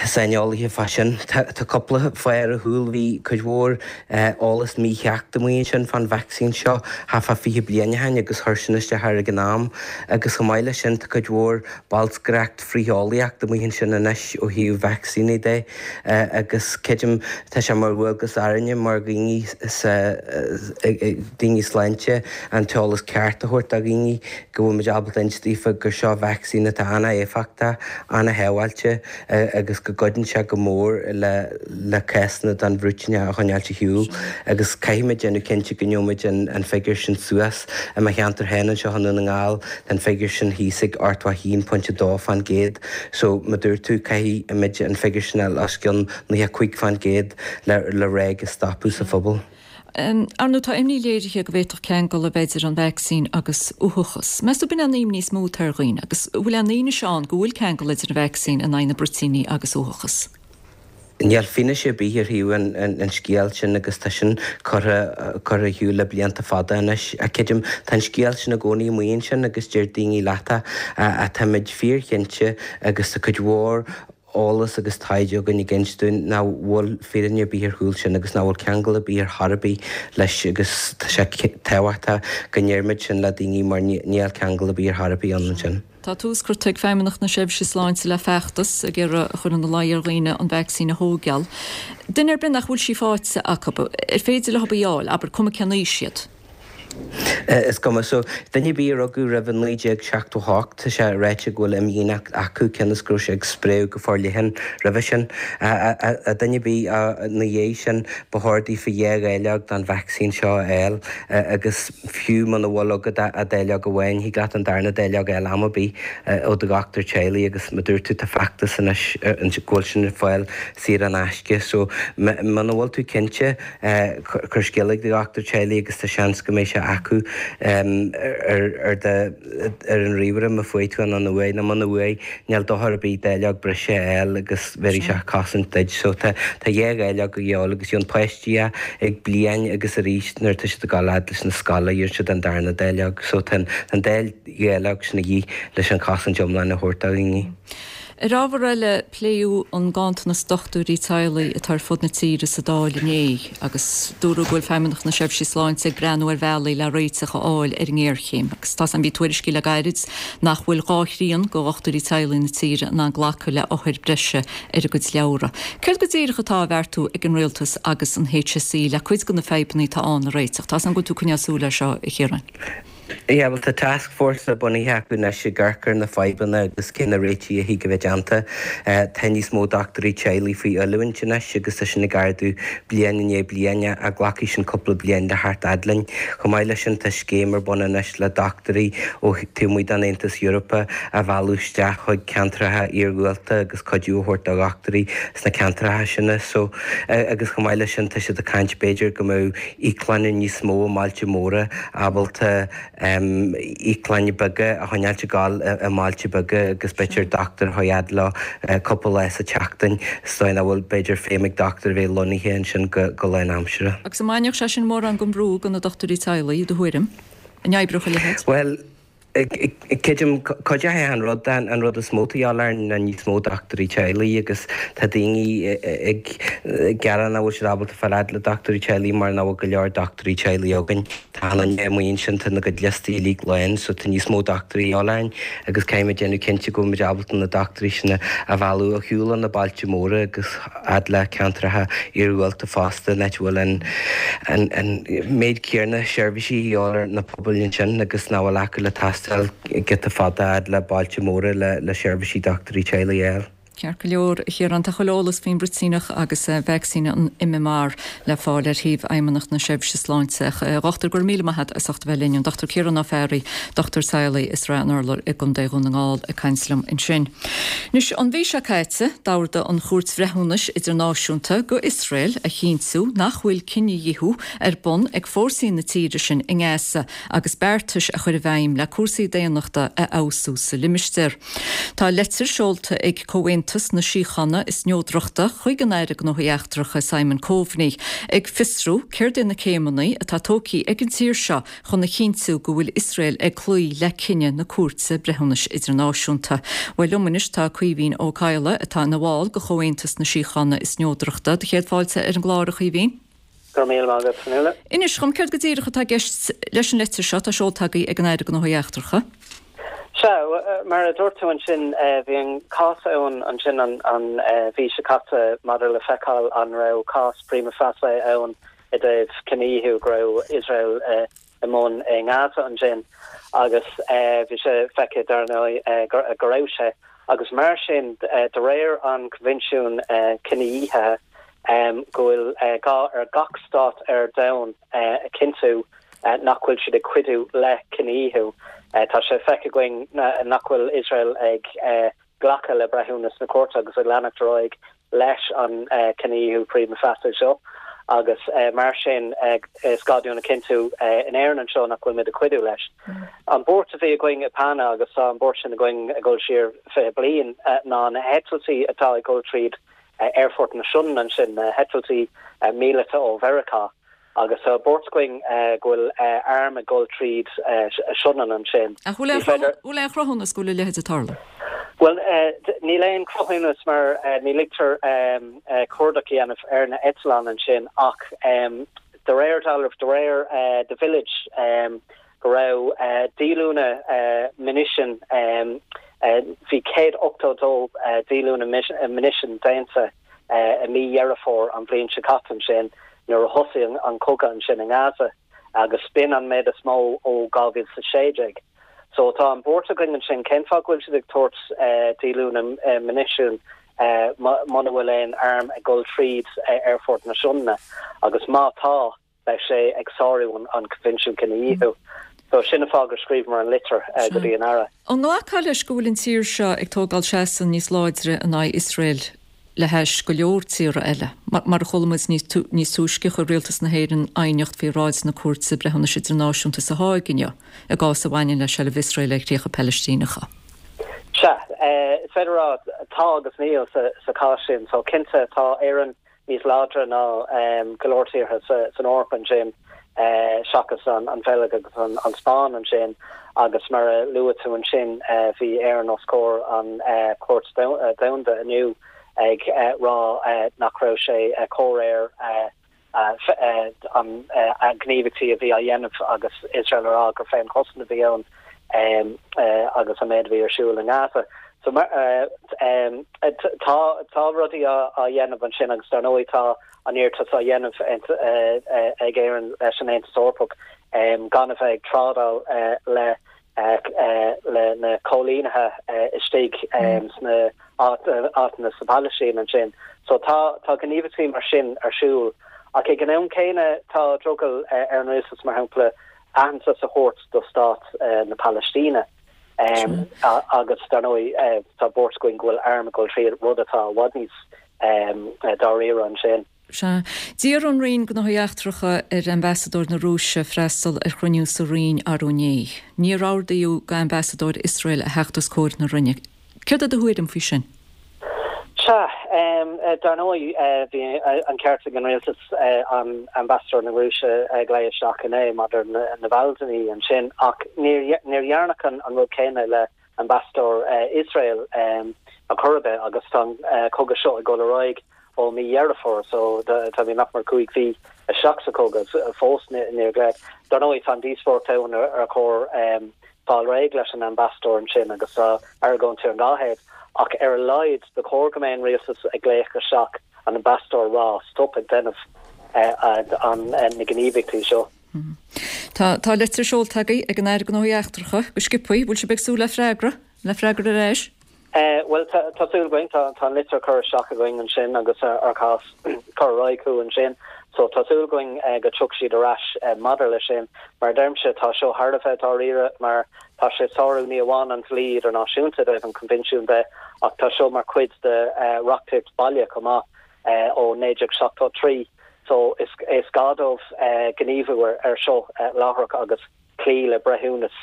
Speaker 18: saineolaithe fá sin. Tá cúpla fáth ar a chúl. Bhí cuid mhór eolas mícheart amuigh ansin fán vacsaín seo thart fá 20 bliain ó shin agus chuir sin isteach air ag an am. Agus chomh maith leis sin tá cuid mhór bolscaireacht frith-eolaíocht amuigh ansin anois ó thaobh vacsaíní de agus creidim tá sé mar dhualgas orainne mar dhaoine sa daoine sláinte an t-eolas ceart a thabhairt do dhaoine go bhfuil muid ábalta inse daofa gur seo vacsaín atá an-éifeachtach, an-shábháilte agus go gcuidíonn sé go mór le le cásanna den bhruitíneach a choinneáilt ar shiúl agus caithfimid déanamh cinnte go ngeobhaimid an figiúr sin suas. I mo cheantar féin anseo i nDún na nGall tá an figiúr sin thíos ag 81.2% so mar a dúirt tú caithfimid an figiúr sin a fháil os cionn 95% le le ráig a stopadh sa phobal.
Speaker 1: Ar ndóigh, tá imní léirithe go bhféadfadh ceangal a bheith idir an vacsaín agus uathachas. Meas tú ab in é an imní is mó atá ar dhaoine? Agus an bhfuil aon fhianaise ann go bhfuil ceangal idir an vacsaín in aghaidh na bruitíní agus uathachas?
Speaker 18: Níl fianaise ar bith ar thaobh an scéil sin agus tá sin curtha curtha ar shiúl le blianta fada anois. Ach creidim, tá an scéal sin i gcónaí amuigh ansin agus deir daoine leat é ach táimid fíorchinnte agus tá cuid mhór eolas agus taighde againn ag inse dúinn nach bhfuil fírinne ar bith ar chúl sin agus nach bhfuil ceangal ar bith ar chor ar bith leis agus tá sé tábhachtach go ndeirimid sin le daoine mar níl ceangal ar bith ar chor ar bith ann ansin.
Speaker 1: Tá tús curtha ag Feidhmeannacht na Seirbhíse Sláinte le feachtas ag iarraidh a chur ina luí ar dhaoine an vacsaín a thóigeáil. Duine ar bith nach bhfuil sí faighte acu, ar féidir leo í a fháil, abair, cuma cén aois iad?
Speaker 18: Is cuma. So, duine ar bith a rugadh roimh 1978, tá sé ráite go bhfuil imdhíonacht acu, cionn is go raibh sé ag spréadh go forleathan roimhe sin. Duine ar bith ina dhiaidh sin, ba chóir daofa dhá dháileog den vacsaín seo a fháil agus fiú muna bhfuil agat ach dáileog amháin, thig leat an darna dáileog a fháil am ar bith ó do dhochtúir teaghlaigh agus mar a dúirt tú, tá feachtas anois go bhfuil sin ar fáil saor in aisce. So, muna bhfuil tú cinnte, Cuir scéala ag do dhochtúir teaghlaigh agus tá seans go mbeidh sé acu ar do ar an ríomhaire má fuair tú an uaidh nó muna bhfuair níl dochar ar bith dáileog breise a fháil agus bhéarfaidh sé cosaint duit. So tá tá dhá dháileog a dhíobháil agus gheobhann páistí é ag bliain agus arís nuair atá siad ag dul fhad leis na scoile gheobhann siad an darna dáileog. So tá an dá dháileog sin a dhíth leis an chosaint iomlán a thabhairt do dhaoine.
Speaker 1: Ar ábhar eile, pléadh an ganntanas dochtúirí teaghlaigh atá ar fud na tíre sa Dáil inné agus dúradh go bhfuil Feidhmeannacht na Seirbhíse Sláinte ag breathnú ar bhealaí le réiteach a fháil ar an ngéarchéim agus tá bhí tuairiscí le gairid nach bhfuil dhá thrian de dhochtúirí teaghlaigh na tíre in ann glacadh le othair breise ar a gcuid leabhra. Céard go díreach atá á bheartú ag an Rialtas agus an HSE le cuid de na fadhbanna atá ann a réiteach? Tá 's agam go bhfuil tú ag coinneáil súil air seo, a Chiaráin.
Speaker 18: Yeah, bhuel tá task force bunaithe acu anois ag amharc ar na fadhbanna agus cé na réitigh a thig a bheith déanta. Tá níos mó dochtúirí teaghlaigh faoi oiliúint anois agus tá sin ag ardú bliain i ndiaidh bliana ach glacfaidh sin cúpla bliain le theacht fhad linn. Chomh maith leis sin tá scéim ar bun anois le dochtúirí ó taobh amuigh den Aontas Eorpach a mhealladh isteach chuig ceantracha iargúlta agus cuidiú a thabhairt do dhochtúirí sna ceantracha sin. So, agus chomh maith leis sin tá siad ag caint b'fhéidir go mbeadh íoclanna níos mó i mbailte móra ábalta íoclanna beaga a choinneáilt ag gabháil i mbailte beaga agus b'fhéidir dochtúir a chur fhad leo cúpla lá sa tseachtain sa dóigh nach bhfuil b'fhéidir feidhm ag dochtúir a bheith lonnaithe ansin go lánaimseartha.
Speaker 1: Agus an mbainfeadh sé sin mórán den bhrú de na dochtúirí teaghlaigh, i do thuairim? An oibreodh a leithéid?
Speaker 18: Bhuel. Creidim, cuideoidh an rud, an rud is mó atá de dhíobháil orainn ná níos mó dochtúirí teaghlaigh agus tá daoine ag gearán nach bhfuil siad ábalta fáil fhad le dochtúirí teaghlaigh mar nach bhfuil go leor dochtúirí teaghlaigh againn. Tá an duine amuigh ansin, tá na gcuid liostaí uilig lán so tá níos mó dochtúirí de dhíobháil orainn agus caithfidh muid déanamh cinnte go bhfuil muid ábalta na dochtúirí sin a mhealladh ar shiúl ó na bailte móra agus fhad le ceantracha iargúlta fosta, an áit a bhfuil an méid céanna seirbhísí de dhíobháil ar na pobail ansin agus nach bhfuil acu le taisteal giota fada fhad le bailte móra le seirbhísí dochtúirí teaghlaigh a fháil.
Speaker 1: Ceart go leor, a Chiaráin, tá chuile eolas faoin mbruitíneach agus vacsaín an MMR le fáil ar shuíomh Fheidhmeannacht na Seirbhíse Sláinte. A Dhochtúir, go raibh míle maith agat as ucht a bheith linn. An Dr Ciarán Ó Fearraigh, dochtúir teaghlaigh i Srath an Urláir i gContae Dhún na nGall ag caint liom ansin. Anois, an mhí seo caite, d'ordaigh an Chúirt Bhreithiúnais Idirnáisiúnta go Iosrael a chinntiú nach bhfuil cinedhíothú ar bun ag fórsaí na tíre sin i nGaza agus beartais a chur i bhfeidhm le cúrsaí daonnachta a fheabhsú sa limistéar. Tá leitir seolta ag Comhaontas na Síochána is Neodrachta chuig an Aire Gnóthaí Eachtracha Simon Coveney ag fiosrú céard é na céimeanna atá tógtha ag an tír seo chun a chinntiú go bhfuil Iosrael ag cloí le cinneadh na Cúirte Breithiúnais Idirnáisiúnta. Bhuel, liom anois tá Caoimhín Ó Cadhla, atá ina bhall de Chomhaontas na Síochána is Neodrachta. Do chéad fáilte ar an gclár, a Chaoimhín.
Speaker 19: Go raibh míle maith agat, Fionnuala.
Speaker 1: Inis dhom, céard go díreach atá i gceist leis an leitir seo atá seolta agaibh ag an Aire Gnóthaí Eachtracha?
Speaker 19: Sea, mar a dúirt tú ansin, bhí an cás ann ansin an mhí seo caite maidir le feiceáil an raibh cás prima facie ann i dtaobh cinedhíothú go raibh Iosrael i mbun i nGaza ansin agus bhí sé feicthe dar ndóigh go raibh sé agus mar sin de réir an Coinbhinsiúin Cinedhíothaithe go bhfuil gá ar gach stát ar domhan a chinntiú nach bhfuil siad ag cuidiú le cinedhíothú. Tá sé feicthe againn nach bhfuil Iosrael ag glacadh le breithiúnas na cúirte agus ag leanacht ar aghaidh leis an cinedhíothú prima facie seo agus mar sin is gá dúinn a chinntiú in Éirinn anseo nach bhfuil muid ag cuidiú leis. An buairt a bhí againn i PANA agus tá an buairt sin againn ag dul siar 20 bliain ná na heitiltí atá ag dul tríd Aerfort na Sionainne ansin, na heitiltí míleata ó Mheiriceá. Agus tá buairt againn go bhfuil airm ag dul tríd Sionainn ansin.
Speaker 1: Ach bhfuil aon chruthúnas go bhfuil a leithéid ag tarlú?
Speaker 19: Bhuel, níl aon chruthúnas mar ní ligtear cuardach a dhéanamh ar na eitleáin ansin ach de réir dealraimh, de réir The Village, go raibh díolúine munition, bhí 182 díolúine munition déanta i mí Dheireadh Fómhair an bhliain seo caite ansin nuair a thosaigh an cogadh ansin i nGaza agus b'in an méid is mó ó 2016. So tá an buairt againn ansin, cén fáth go bhfuil siad ag tabhairt díolúine munition muna bhfuil aon arm ag dul tríd Aerfort na Sionainne agus má tá, beidh sé ag sárú an Coinbhinsiún Cinedhíothú. So sin an fáth gur scríobhamar an litir go dtí an Aire.
Speaker 1: An nglacfá leis go bhfuil an tír seo ag tógáil seasamh níos láidre in aghaidh Iosrael le hais go leor tíortha eile? Mar a chuala muid níos túisce, chuir Rialtas na hÉireann aighneacht faoi bhráid na Cúirte Breithiúnais Idirnáisiúnta sa Háig inniu i gcás a bhaineann le seilbh Iosrael ar chríocha Palaistíneacha.
Speaker 19: Sea, is féidir a rá tá agus níl sa chás sin. So cinnte tá Éirinn níos láidre ná go leor tíortha san Eoraip ansin, seachas an Bheilg agus an Spáinn ansin, agus mar a luaigh tú ansin, bhí Éirinn os comhair an Chúirt Domhanda inniu ag rá nach raibh sé comhréir an gníomhaíochtaí a bhí á dhéanamh agus Iosrael a rá gur féinchosaint a bhí ann agus an méid a bhí ar siúl i nGaza. So tá tá rudaí á dhéanamh ansin agus dar ndóigh tá an iarratas á dhéanamh ag Éirinn leis an Aontas Eorpach gan a bheith ag trádáil le le na coilínithe istigh sna áiteanna sa Phalaistín ansin. So tá tá gníomhaíochtaí mar sin ar siúl ach ag an am céanna tá drogall ar an rialtas mar shampla aitheantas a thabhairt do stát na Palaistíne. Agus dar ndóigh tá buairt againn go bhfuil airm ag dul tríd, rud atá i bhfad níos dáiríre ansin.
Speaker 1: Sea. D'iarr an Roinn Gnóthaí Eachtracha ar Ambasadóir na Rúise freastal ar chruinniú sa Roinn arú inné. Níor ordaíodh d'Ambasadóir Iosrael a theacht os comhair na Roinne. Céard é do thuairim faoi sin?
Speaker 19: Sea, dar ndóigh, bhí an ceart ag an rialtas an Ambasadóir na Rúise a ghlaoch isteach inné maidir le Navalny ansin, ach níor dhearnadh an rud céanna le Ambasadóir Iosrael ar chor ar bith agus tá an cogadh seo ag dul ar aghaidh ó mí Dheireadh Fómhair, so táimid nach mór 5 mhí isteach sa chogadh fós níor glaodh. Dar ndóigh, tá an díospóireacht ann ar chóir fáil réidh leis an ambasadóir ansin agus tá argóintí ar an dá thaobh ach ar a laghad ba chóir go mbeadh an rialtas ag glaoch isteach an ambasadóir rá stop ag déanamh na gníomhaíochtaí seo.
Speaker 1: Tá tá litir seolta agaibh ag an Aire Gnóthaí Eachtracha go sciobthaí. Bhfuil sibh ag súil le freagra? Le freagra ar ais?
Speaker 19: Bhuel, tá súil againn. Tá an litir curtha isteach againn ansin agus ár cás curtha ar aghaidh chucu ansin. So tá súil againn go dtiocfaidh siad ar ais maidir leis sin. Mar a deirimse, tá seo thar a bheith dáiríre mar tá sé ag sárú ní amháin an dlí idirnáisiúnta i dtaobh an Coinbhinsiúin de ach tá seo mar chuid de reachtaíocht baile chomh maith ó 1973. So is gá dóibh gníomhú ar seo láithreach agus cloí le breithiúnas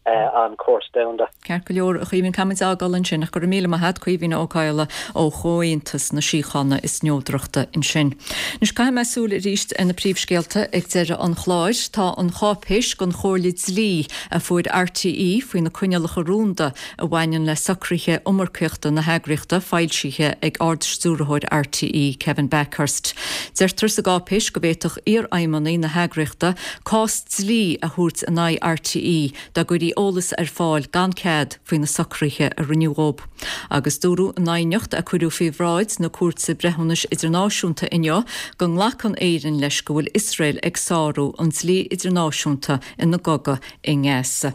Speaker 19: an Chúirt Domhanda.
Speaker 1: Ceart go leor, a Chaoimhín, caithfimid a fhágáil ansin ach go raibh míle maith a't, Caoimhín Ó Cadhla ó Chomhaontas na Síochána is Neodrachta ansin. Anois caithfidh mé súil arís ar na príomhscéalta ag deireadh an chláir. Tá an cháipéis don chomhairle dlí a fuair RTÉ faoi na coinníollacha rúnda a bhaineann le socruithe iomarcaíochta na heagraíochta foilsithe ag Ard-Stiúrthóir RTÉ, Kevin Bakhurst. Deirtear sa gcáipéis go bhféadfadh iarfheidhmeannaigh na heagraíochta cás dlí a thabhairt in aghaidh RTÉ dá gcuirí eolas ar fáil gan cead faoi na socruithe a rinneadh dhóibh. Agus dúradh in aighneacht a cuireadh faoi bhráid na Cúirte Breithiúnais Idirnáisiúnta inniu go nglacann Éirinn leis go bhfuil Iosrael ag sárú an dlí idirnáisiúnta ina gcogadh i nGaza.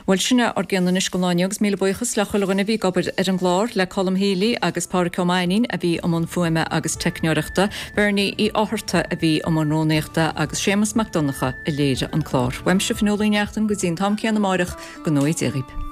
Speaker 1: Bhuel, sin é ár gcion anois don lá inniu agus míle buíochas le chuile dhuine a bhí ag obair ar an gclár, le Colm Healy agus Pádraic Ó Mainnín a bhí i mbun fuaime agus teicneoireachta, Bernie Uí Fhátharta a bhí i mbun rúnaíochta agus Séamus Mac Donncha a léirigh an clár. Uaimse Fionnuala Uí Neachtain go dtí an t-am céanna amáireach, go ngnóthaí Dia dhaoib.